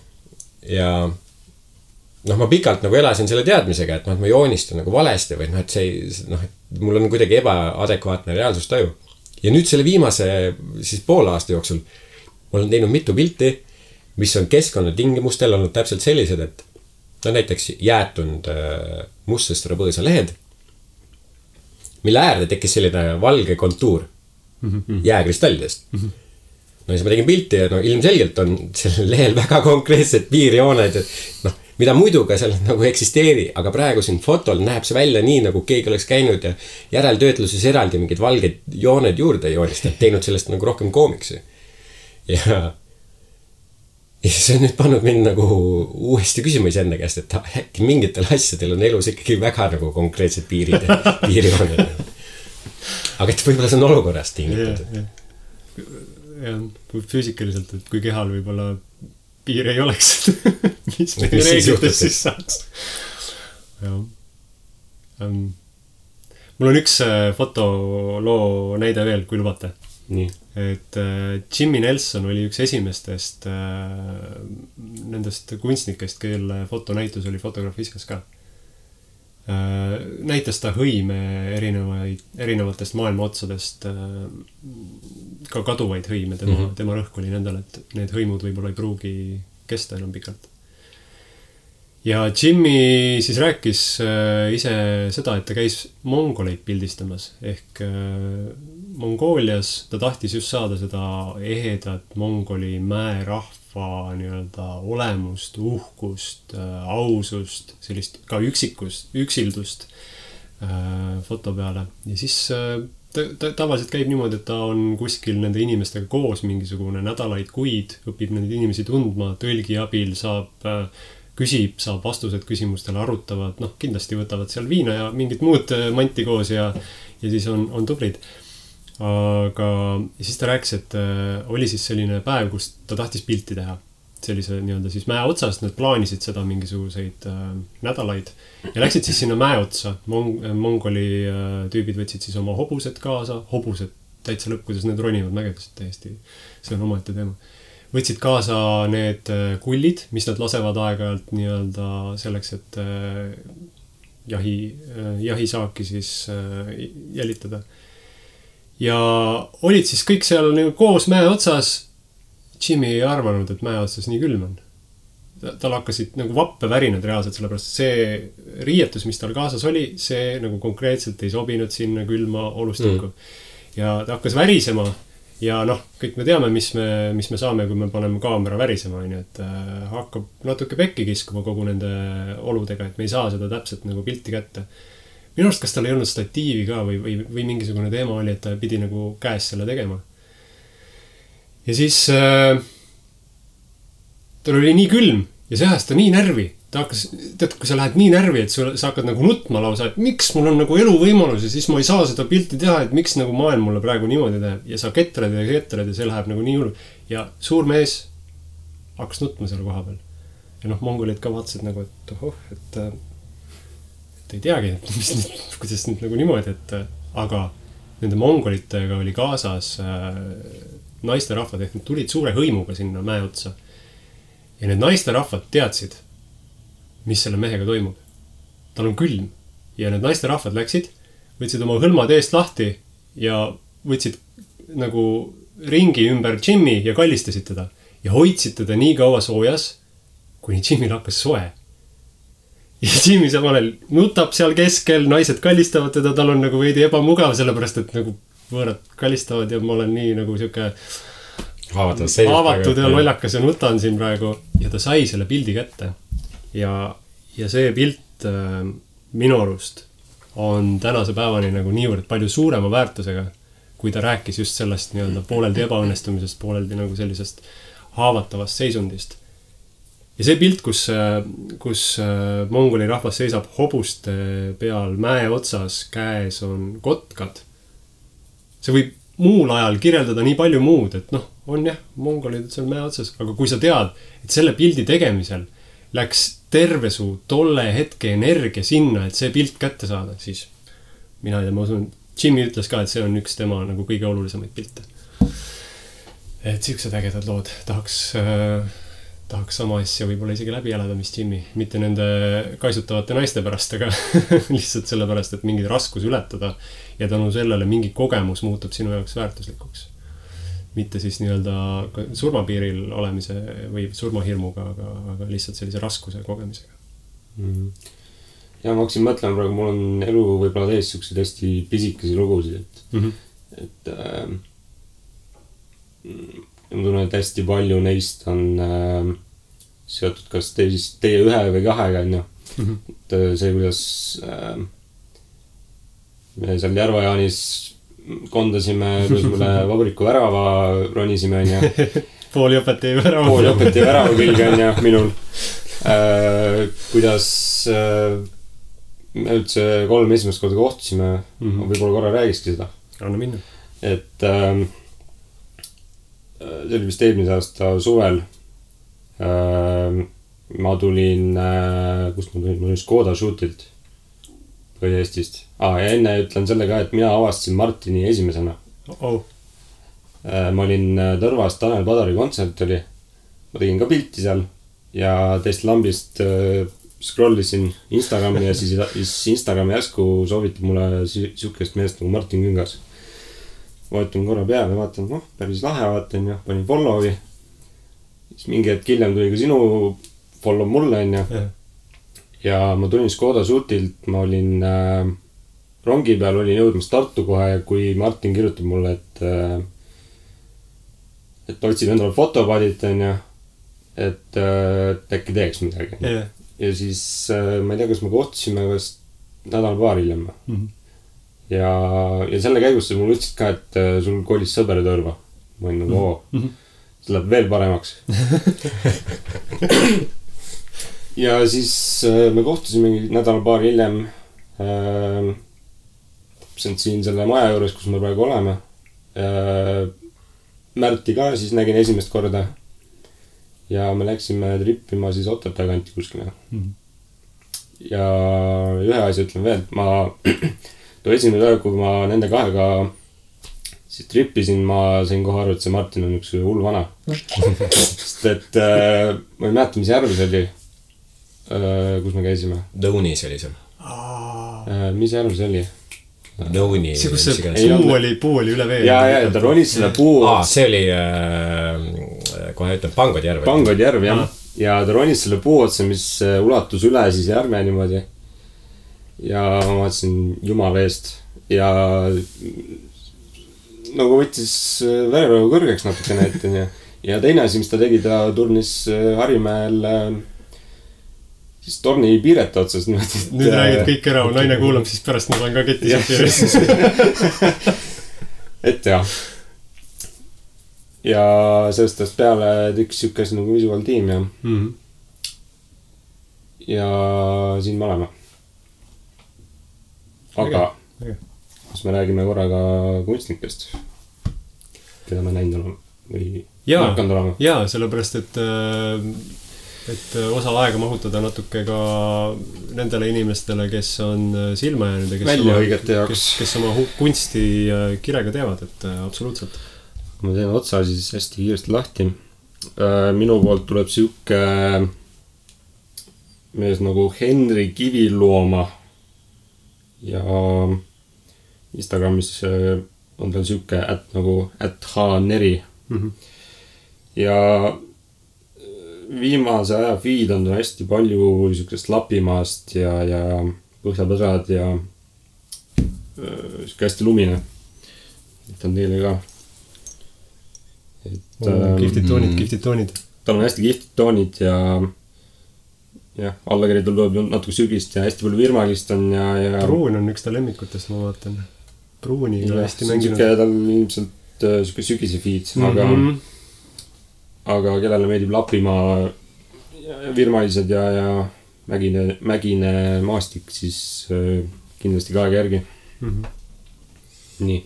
Ja ma pikalt nagu elasin selle teadmisega, et ma joonistan nagu valesti või et see, mul on kuidagi ebaadekvaatne reaalsustaju. Ja nüüd selle viimase siis poole aasta jooksul ma olen teinud mitu pilti, mis on keskkonnatingimustel olnud täpselt sellised, et näiteks jäetunud mustest rabõõsa lehed, mille äärde tekkis selline valge kontuur jääkristallidest. Ja siis ma tegin pilti ja ilmselgelt on sellel lehel väga konkreetsed piirjooned, et mida muidu ka seal nagu eksisteeri, aga praegu siin fotol näeb see välja nii, nagu keegi oleks käinud ja järeltöötluses eraldi mingid valged jooned juurde joonistanud, teinud sellest nagu rohkem koomiksi. Ja see on nüüd pannud mind nagu uuesti küsima enda käest, et äkki mingitel asjadel on elus ikkagi väga nagu konkreetsed piirid ja piirjooned. Aga et võib-olla see on olukorrast tingitud. Ja füüsikaliselt, et kui kehal võib-olla piir ei oleks, mis meie reeglites siis saaks. Mul on üks fotoloo näide veel, kui lubate. et Jimmy Nelson oli üks esimestest nendest kunstnikest, kelle fotonäitus oli Fotografiskas ka. Näitas ta hõime erinevatest maailma otsadest, ka kaduvaid hõime, tema rõhk oli nendel, et need hõimud võib-olla ei pruugi kesta enam pikalt. Ja Jimmy siis rääkis ise seda, et ta käis mongoleid pildistamas ehk Mongoolias ta tahtis just saada seda ehedat mongoli mäerahva nii-öelda olemust, uhkust, ausust, sellist ka üksildust foto peale. Ja siis ta tavaliselt käib niimoodi, et ta on kuskil nende inimestega koos mingisugune nädalaid, kuid, õpib neid inimesi tundma, tõlgi abil küsib, saab vastused küsimustele, arutavad, kindlasti võtavad seal viina ja mingit muud manti koos ja siis on tubrid. Aga siis ta rääkis, et oli siis selline päev, kus ta tahtis pilti teha. Sellise nii-öelda siis mäe otsast, nad plaanisid seda mingisuguseid nädalaid ja läksid siis sinna mäe otsa. Mongoli tüübid võtsid siis oma hobused kaasa, hobused täitsa lõpp, kuidas need ronivad mägedest täiesti, see on omaette teema. Võtsid kaasa need kullid, mis nad lasevad aeg-ajalt nii-öelda selleks, et jahisaaki siis jälitada. Ja olid siis kõik seal koos mäe otsas. Jimmy ei arvanud, et mäe otsas nii külm on. Tal hakkasid nagu vappevärinad reaalselt, sellepärast see riietus, mis tal kaasas oli, see nagu konkreetselt ei sobinud sinna külma olustikku. Ja ta hakkas värisema. Ja kõik me teame, mis me saame, kui me paneme kaamera värisema, et hakkab natuke pekki kiskuma kogu nende oludega, et me ei saa seda täpselt nagu pilti kätte. Minu arust, kas tal ei olnud statiivi ka või mingisugune teema oli, et ta pidi nagu käes selle tegema. Ja siis tal oli nii külm ja see ajas ta nii närvi. Ta hakkas, kui sa lähed nii närvi, et sa hakkad nagu nutma lausa, et miks mul on nagu eluvõimalus ja siis ma ei saa seda pilti teha, et miks nagu maailm mulle praegu niimoodi teeb. Ja sa ketrad ja see läheb nagu nii hullu. Ja suur mees hakkas nutma selle koha peal. Ja mongolid ka vaatasid nagu, et ei teagi, kuidas nüüd nagu niimoodi, aga nende mongolitega oli kaasas naisterahvad, ehk nad tulid suure hõimuga sinna mäe otsa. Ja need naisterahvad teadsid, mis selle mehega toimub. Tal on külm. Ja need naisterahvad läksid, võtsid oma hõlmad eest lahti ja võtsid nagu ringi ümber Jimmy ja kallistasid teda. Ja hoidsid teda nii kaua soojas, kuni Jimmy hakkas soe. Ja Jimmy samal nutab seal keskel, naised kallistavad teda, tal on nagu veidi ebamugav, sellepärast et nagu võõrad kallistavad ja ma olen nii nagu siuke haavatud ja lollakas ja nutan siin praegu. Ja ta sai selle pildi kätte. Ja see pilt minu arust on tänase päevani nagu niivõrd palju suurema väärtusega, kui ta rääkis just sellest nii-öelda pooleldi ebaõnnestumisest, pooleldi nagu sellisest haavatavast seisundist. Ja see pilt, kus mongoli rahvas seisab hobuste peal mäe otsas, käes on kotkad, see võib muul ajal kirjeldada nii palju muud, et on jah, mongolid seal mäe otsas, aga kui sa tead, et selle pildi tegemisel läks terve su tolle hetke energia sinna, et see pilt kätte saada, siis mina ei tea, ma usun, Jimmy ütles ka, et see on üks tema nagu kõige olulisemaid pilte. Et siuksed ägedad lood. Tahaks sama asja võib-olla isegi läbi elada, mis Jimmy. Mitte nende kaisutavate naiste pärast, aga lihtsalt selle pärast, et mingid raskus ületada ja tänu sellele mingi kogemus muutub sinu jaoks väärtuslikuks. Mitte siis nii-öelda surmapiiril olemise või surmahirmuga, aga lihtsalt sellise raskuse kogemisega. Ja ma hakkasin mõtlema praegu, mul on elu võib-olla täis siukseid hästi pisikesi lugusid, et ma tunnen, et hästi palju neist on seotud kas teie ühe või kahega, et see, kuidas me seal Järva-Jaanis kondasime, kus mulle vabriku värava ronisime, Pooli õpetaja värava külge, minul. Kuidas me üldse 3 esimest korda kohtusime, võib-olla korra räägiski seda. Anna minna. Et see oli vist eelmise aasta suvel. Ma tulin, kust ma tulin? Ma tulin Škoda Shoot'ilt. Põhja-Eestist. Ja enne ütlen selle ka, et mina avastasin Martini esimesena. ma olin Tõrvas, Tanel Padari kontsert oli. Ma tegin ka pilti seal ja teist lambist scrollisin Instagrami ja siis Instagrami järsku soovitab mulle siukest meest nagu Martin Küngas. Vaatan korra peale, vaatan, päris lahe, vaatan ja panin follow'i. Siis mingi hetk hiljem tuli ka sinu follow mulle, on ju. Ja ma tulin Škoda Suutilt, ma olin rongi peal, olin jõudmas Tartu kohe ja kui Martin kirjutab mulle, et otsin endale fotopadit, on ju, et äkki teeks midagi. Ja siis ma ei tea, kas me kohtusime kas nädal paar hiljem. Ja selle käigus sa mulle ütlesid ka, et sul kolis sõber Tõrva. Ma olin nagu, see läheb veel paremaks. Ja siis me kohtusime nädal paar hiljem siin selle maja juures, kus me praegu oleme. Märti ka siis nägin esimest korda. Ja me läksime trippima siis Otepää kanti kuskile. Ja ühe asja ütlen veel, et too esimene päev, kui ma nende kahega siis trippisin, ma sain kohe aru, et see Martin on üks hull vana. Sest et ma ei mäleta, mis järv see oli, kus me käisime. Dõunis oli see. Mis järv see oli? Dõuni. See, kus see puu oli üle vee. Ja, ta ronis selle puu. See oli, kohe ütlen, Pangodjärv. Pangodjärv, jah. Ja ta ronis selle puu otsa, mis ulatus üle siis järve niimoodi. Ja ma vaatasin jumala eest. Ja nagu võttis vererõhu kõrgeks natukene ette. Ja teine asi, mis ta tegi, ta turnis Harimäel siis torni piirete otsas. Nüüd räägid kõik ära, naine kuulab, siis pärast ma saan ka ketti sealt. Et jah. Ja sellest ajast peale tüks sükes nagu visual tiim ja ja siin me oleme. Aga kas me räägime korraga kunstnikest, keda me näinud oleme või hakanud olema? Jaa, sellepärast, et osa aega mahutada natuke ka nendele inimestele, kes on silma jäänud ja kes oma kunsti kirega teevad, et absoluutselt. Ma teen otsa siis hästi kiiresti lahti. Minu poolt tuleb siuke mees nagu Henri Kivilooma ja Instagramis on tal siuke @hneri. Ja viimase aja feed on hästi palju siukest Lapimaast ja Põhjapõdrad ja siuke hästi lumine. Et on teile ka. Kihvtid toonid. Tal on hästi kihvtid toonid ja allakiri tuleb natuke sügist ja hästi palju virmalist on ja Pruun on üks ta lemmikutest, ma vaatan. Pruuniga hästi mänginud. Tal on ilmselt siuke sügise feed, aga kellele meeldib Lapimaa virmalised ja mägine maastik, siis kindlasti ka aega järgi. Nii.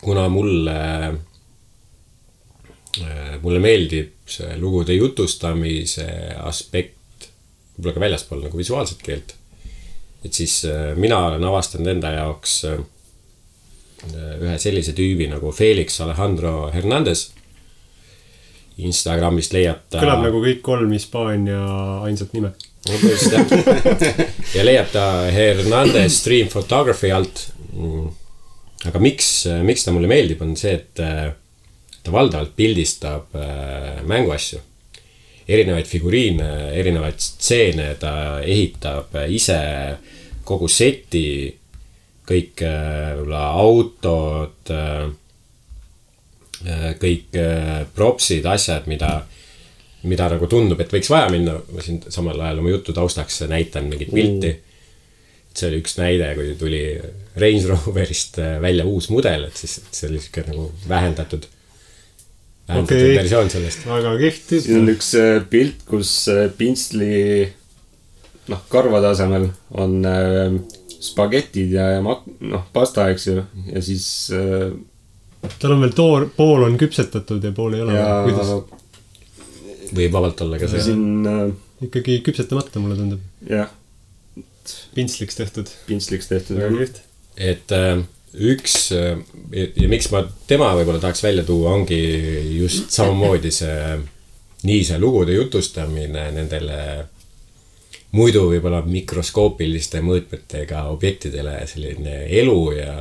Kuna mulle meeldib see lugude jutustamise aspekt võib-olla ka väljaspool nagu visuaalset keelt, et siis mina olen avastanud enda jaoks ühe sellise tüübi nagu Felix Alejandro Hernandez. Instagramist leiab ta... Kõlab nagu kõik 3 Hispaania ainsat nime. Ja leiab ta Hernandez Stream Photography alt. Aga miks ta mulle meeldib, on see, et ta valdavalt pildistab mänguasju. Erinevaid figuriine, erinevaid stseene, ta ehitab ise kogu seti, kõik autod, kõik propsid, asjad, mida nagu tundub, et võiks vaja minna. Ma siin samal ajal oma jutu taustaks näitan mingit pilti. See oli üks näide, kui tuli Range Roverist välja uus mudel, et siis see oli siuke nagu vähendatud versioon sellest. Väga kihvt. Siin on üks pilt, kus pintsli karvade asemel on spagetid ja pasta, eks ju. Ja siis tal on veel pool on küpsetatud ja pool ei ole. Võib vabalt olla ka see. Siin ikkagi küpsetamata, mulle tundub. Jah. Pintsliks tehtud. Väga kihvt. Et üks ja miks ma tema võib-olla tahaks välja tuua, ongi just samamoodi see lugude jutustamine nendele muidu võib-olla mikroskoopiliste mõõtmetega objektidele, selline elu ja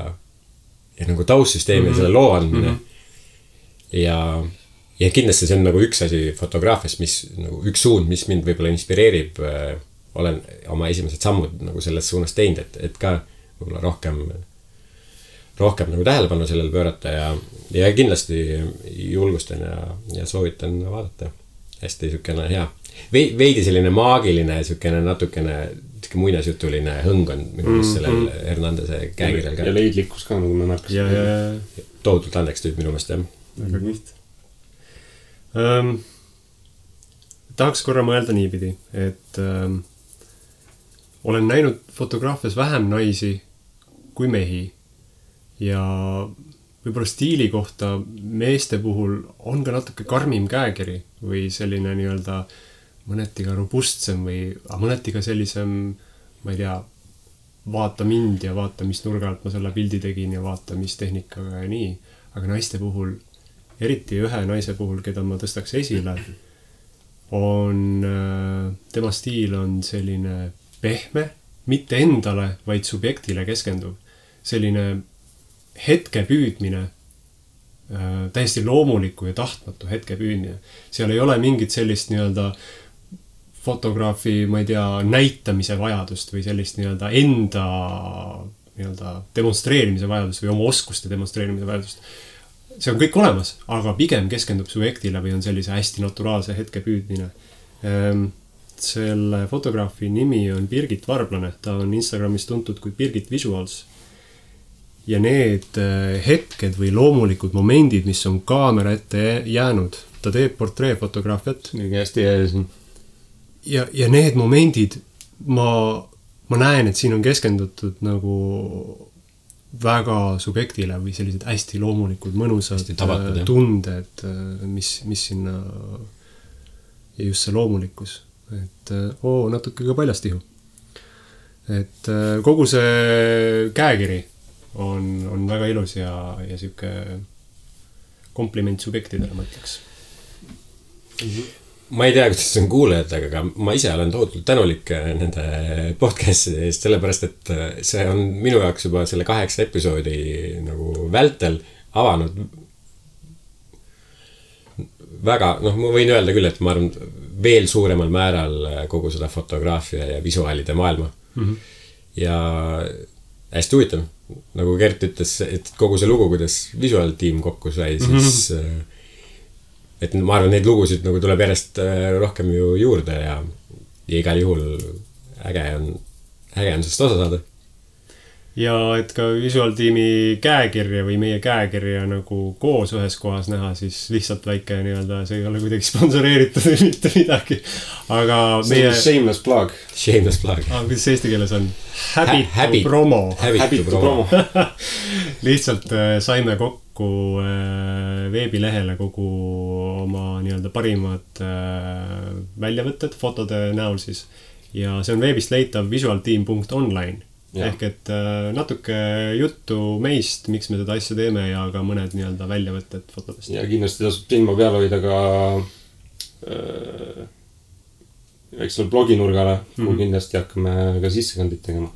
nagu taustsüsteemi selle loo andmine. Ja kindlasti see on nagu üks asi fotograafias, mis nagu üks suund, mis mind võib-olla inspireerib. Olen oma esimesed sammud nagu selles suunas teinud, et ka võib-olla rohkem nagu tähelepanu sellele pöörata ja kindlasti julgustan ja soovitan vaadata. Hästi sükene hea. Veidi selline maagiline, sükene natukene muinasjutuline hõng on minu meelest sellel Hernandese käekirjal ka. Ja leidlikkus ka, nagu me märkasime. Tohutult anneks tüüp minu meelest, jah. Väga kiht. Tahaks korra mõelda niipidi, et olen näinud fotograafias vähem naisi kui mehi ja võib-olla stiili kohta meeste puhul on ka natuke karmim käekiri või selline nii-öelda mõneti ka robustsem või mõneti ka sellisem, ma ei tea, vaata mind ja vaata, mis nurga alt ma selle pildi tegin ja vaata, mis tehnikaga ja nii. Aga naiste puhul, eriti ühe naise puhul, keda ma tõstaks esile, tema stiil on selline pehme, mitte endale, vaid subjektile keskenduv. Selline hetke püüdmine, täiesti loomuliku ja tahtmatu hetke püüdmine. Seal ei ole mingit sellist nii-öelda fotograafi, ma ei tea, näitamise vajadust või sellist nii-öelda enda nii-öelda demonstreerimise vajadust või oma oskuste demonstreerimise vajadust. See on kõik olemas, aga pigem keskendub subjektile või on sellise hästi naturaalse hetke püüdmine. Selle fotograafi nimi on Birgit Varblane, ta on Instagramis tuntud kui Birgit Visuals. Ja need hetked või loomulikud momendid, mis on kaamera ette jäänud, ta teeb portreefotograafiat. Hästi ees. Ja need momendid, ma näen, et siin on keskendutud nagu väga subjektile või sellised hästi loomulikud, mõnusad tunded, mis sinna ja just see loomulikkus. Et natuke ka paljastihu. Et kogu see käekiri on väga ilus ja siuke kompliment subjektidele, ma ütleks. Ma ei tea, kuidas see on kuulajatega, aga ma ise olen tohutult tänulik nende podcasti eest, sellepärast, et see on minu jaoks juba selle 8 episoodi nagu vältel avanud väga, ma võin öelda küll, et ma arvan veel suuremal määral kogu seda fotograafia ja visuaalide maailma. Ja hästi huvitav. Nagu Gert ütles, et kogu see lugu, kuidas visuaaltiim kokku sai, siis et ma arvan, neid lugusid nagu tuleb järjest rohkem ju juurde ja igal juhul äge on sellest osa saada. Ja et ka visuaaltiimi käekirja või meie käekirja nagu koos ühes kohas näha, siis lihtsalt väike nii-öelda, see ei ole kuidagi sponsoreeritud või mitte midagi. Aga meie... Shameless plug. Shameless plug. Kuidas see eesti keeles on? Habit promo. Habit promo. Lihtsalt saime kokku veebilehele kogu oma nii-öelda parimad väljavõtted fotode näol siis. Ja see on veebist leitav visualteam.online. Ja. Ehk et natuke juttu meist, miks me seda asja teeme ja ka mõned nii-öelda väljavõtted fotodest. Ja kindlasti tasub silma peal hoida ka väiksele bloginurgale, kuhu kindlasti hakkame ka sissekandid tegema.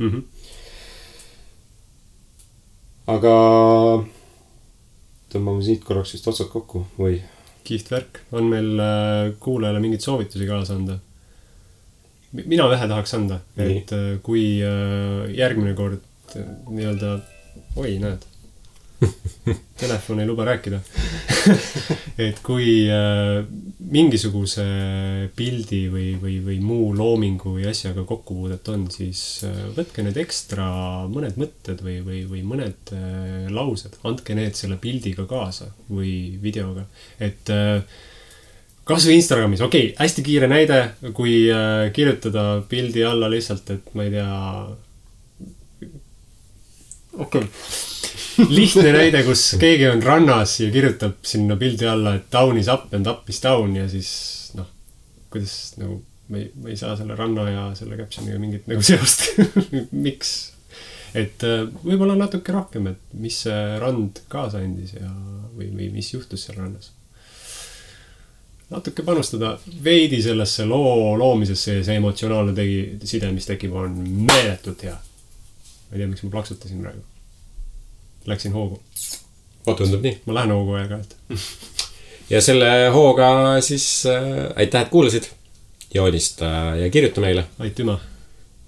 Aga tõmbame siit korraks vist otsad kokku või? Kiht värk. On meil kuulajale mingid soovitusi kaasa anda? Mina vähe tahaks anda, et kui järgmine kord nii-öelda, näed, telefon ei luba rääkida. Et kui mingisuguse pildi või muu loomingu või asjaga kokkupuudet on, siis võtke need ekstra mõned mõtted või mõned laused. Andke need selle pildiga kaasa või videoga. Et kas või Instagramis, hästi kiire näide, kui kirjutada pildi alla lihtsalt, et ma ei tea, lihtne näide, kus keegi on rannas ja kirjutab sinna pildi alla, et down is up and up is down ja siis, kuidas nagu, ma ei saa selle ranna ja selle captioniga mingit nagu seost. Miks? et võib-olla natuke rohkem, et mis see rand kaasa andis ja või mis juhtus seal rannas. Natuke panustada veidi sellesse loomisesse ja see emotsionaalne side, mis tekib, on meeletult hea. Ma ei tea, miks ma plaksutasin praegu. Läksin hoogu. Tundub nii. Ma lähen hoogu aeg-ajalt. Ja selle hooga siis aitäh, et kuulasid. Joonista ja kirjuta meile. Aitüma.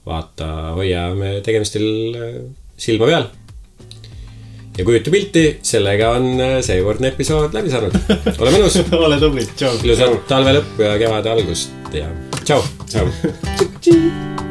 Vaata, hoia me tegemistel silma peal. Ja kujuta pilti, sellega on seekordne episood läbi saanud. Ole mõnus. Ole tubli. Tšau. Ilusat talve lõppu ja kevade algust ja tšau. Tšau.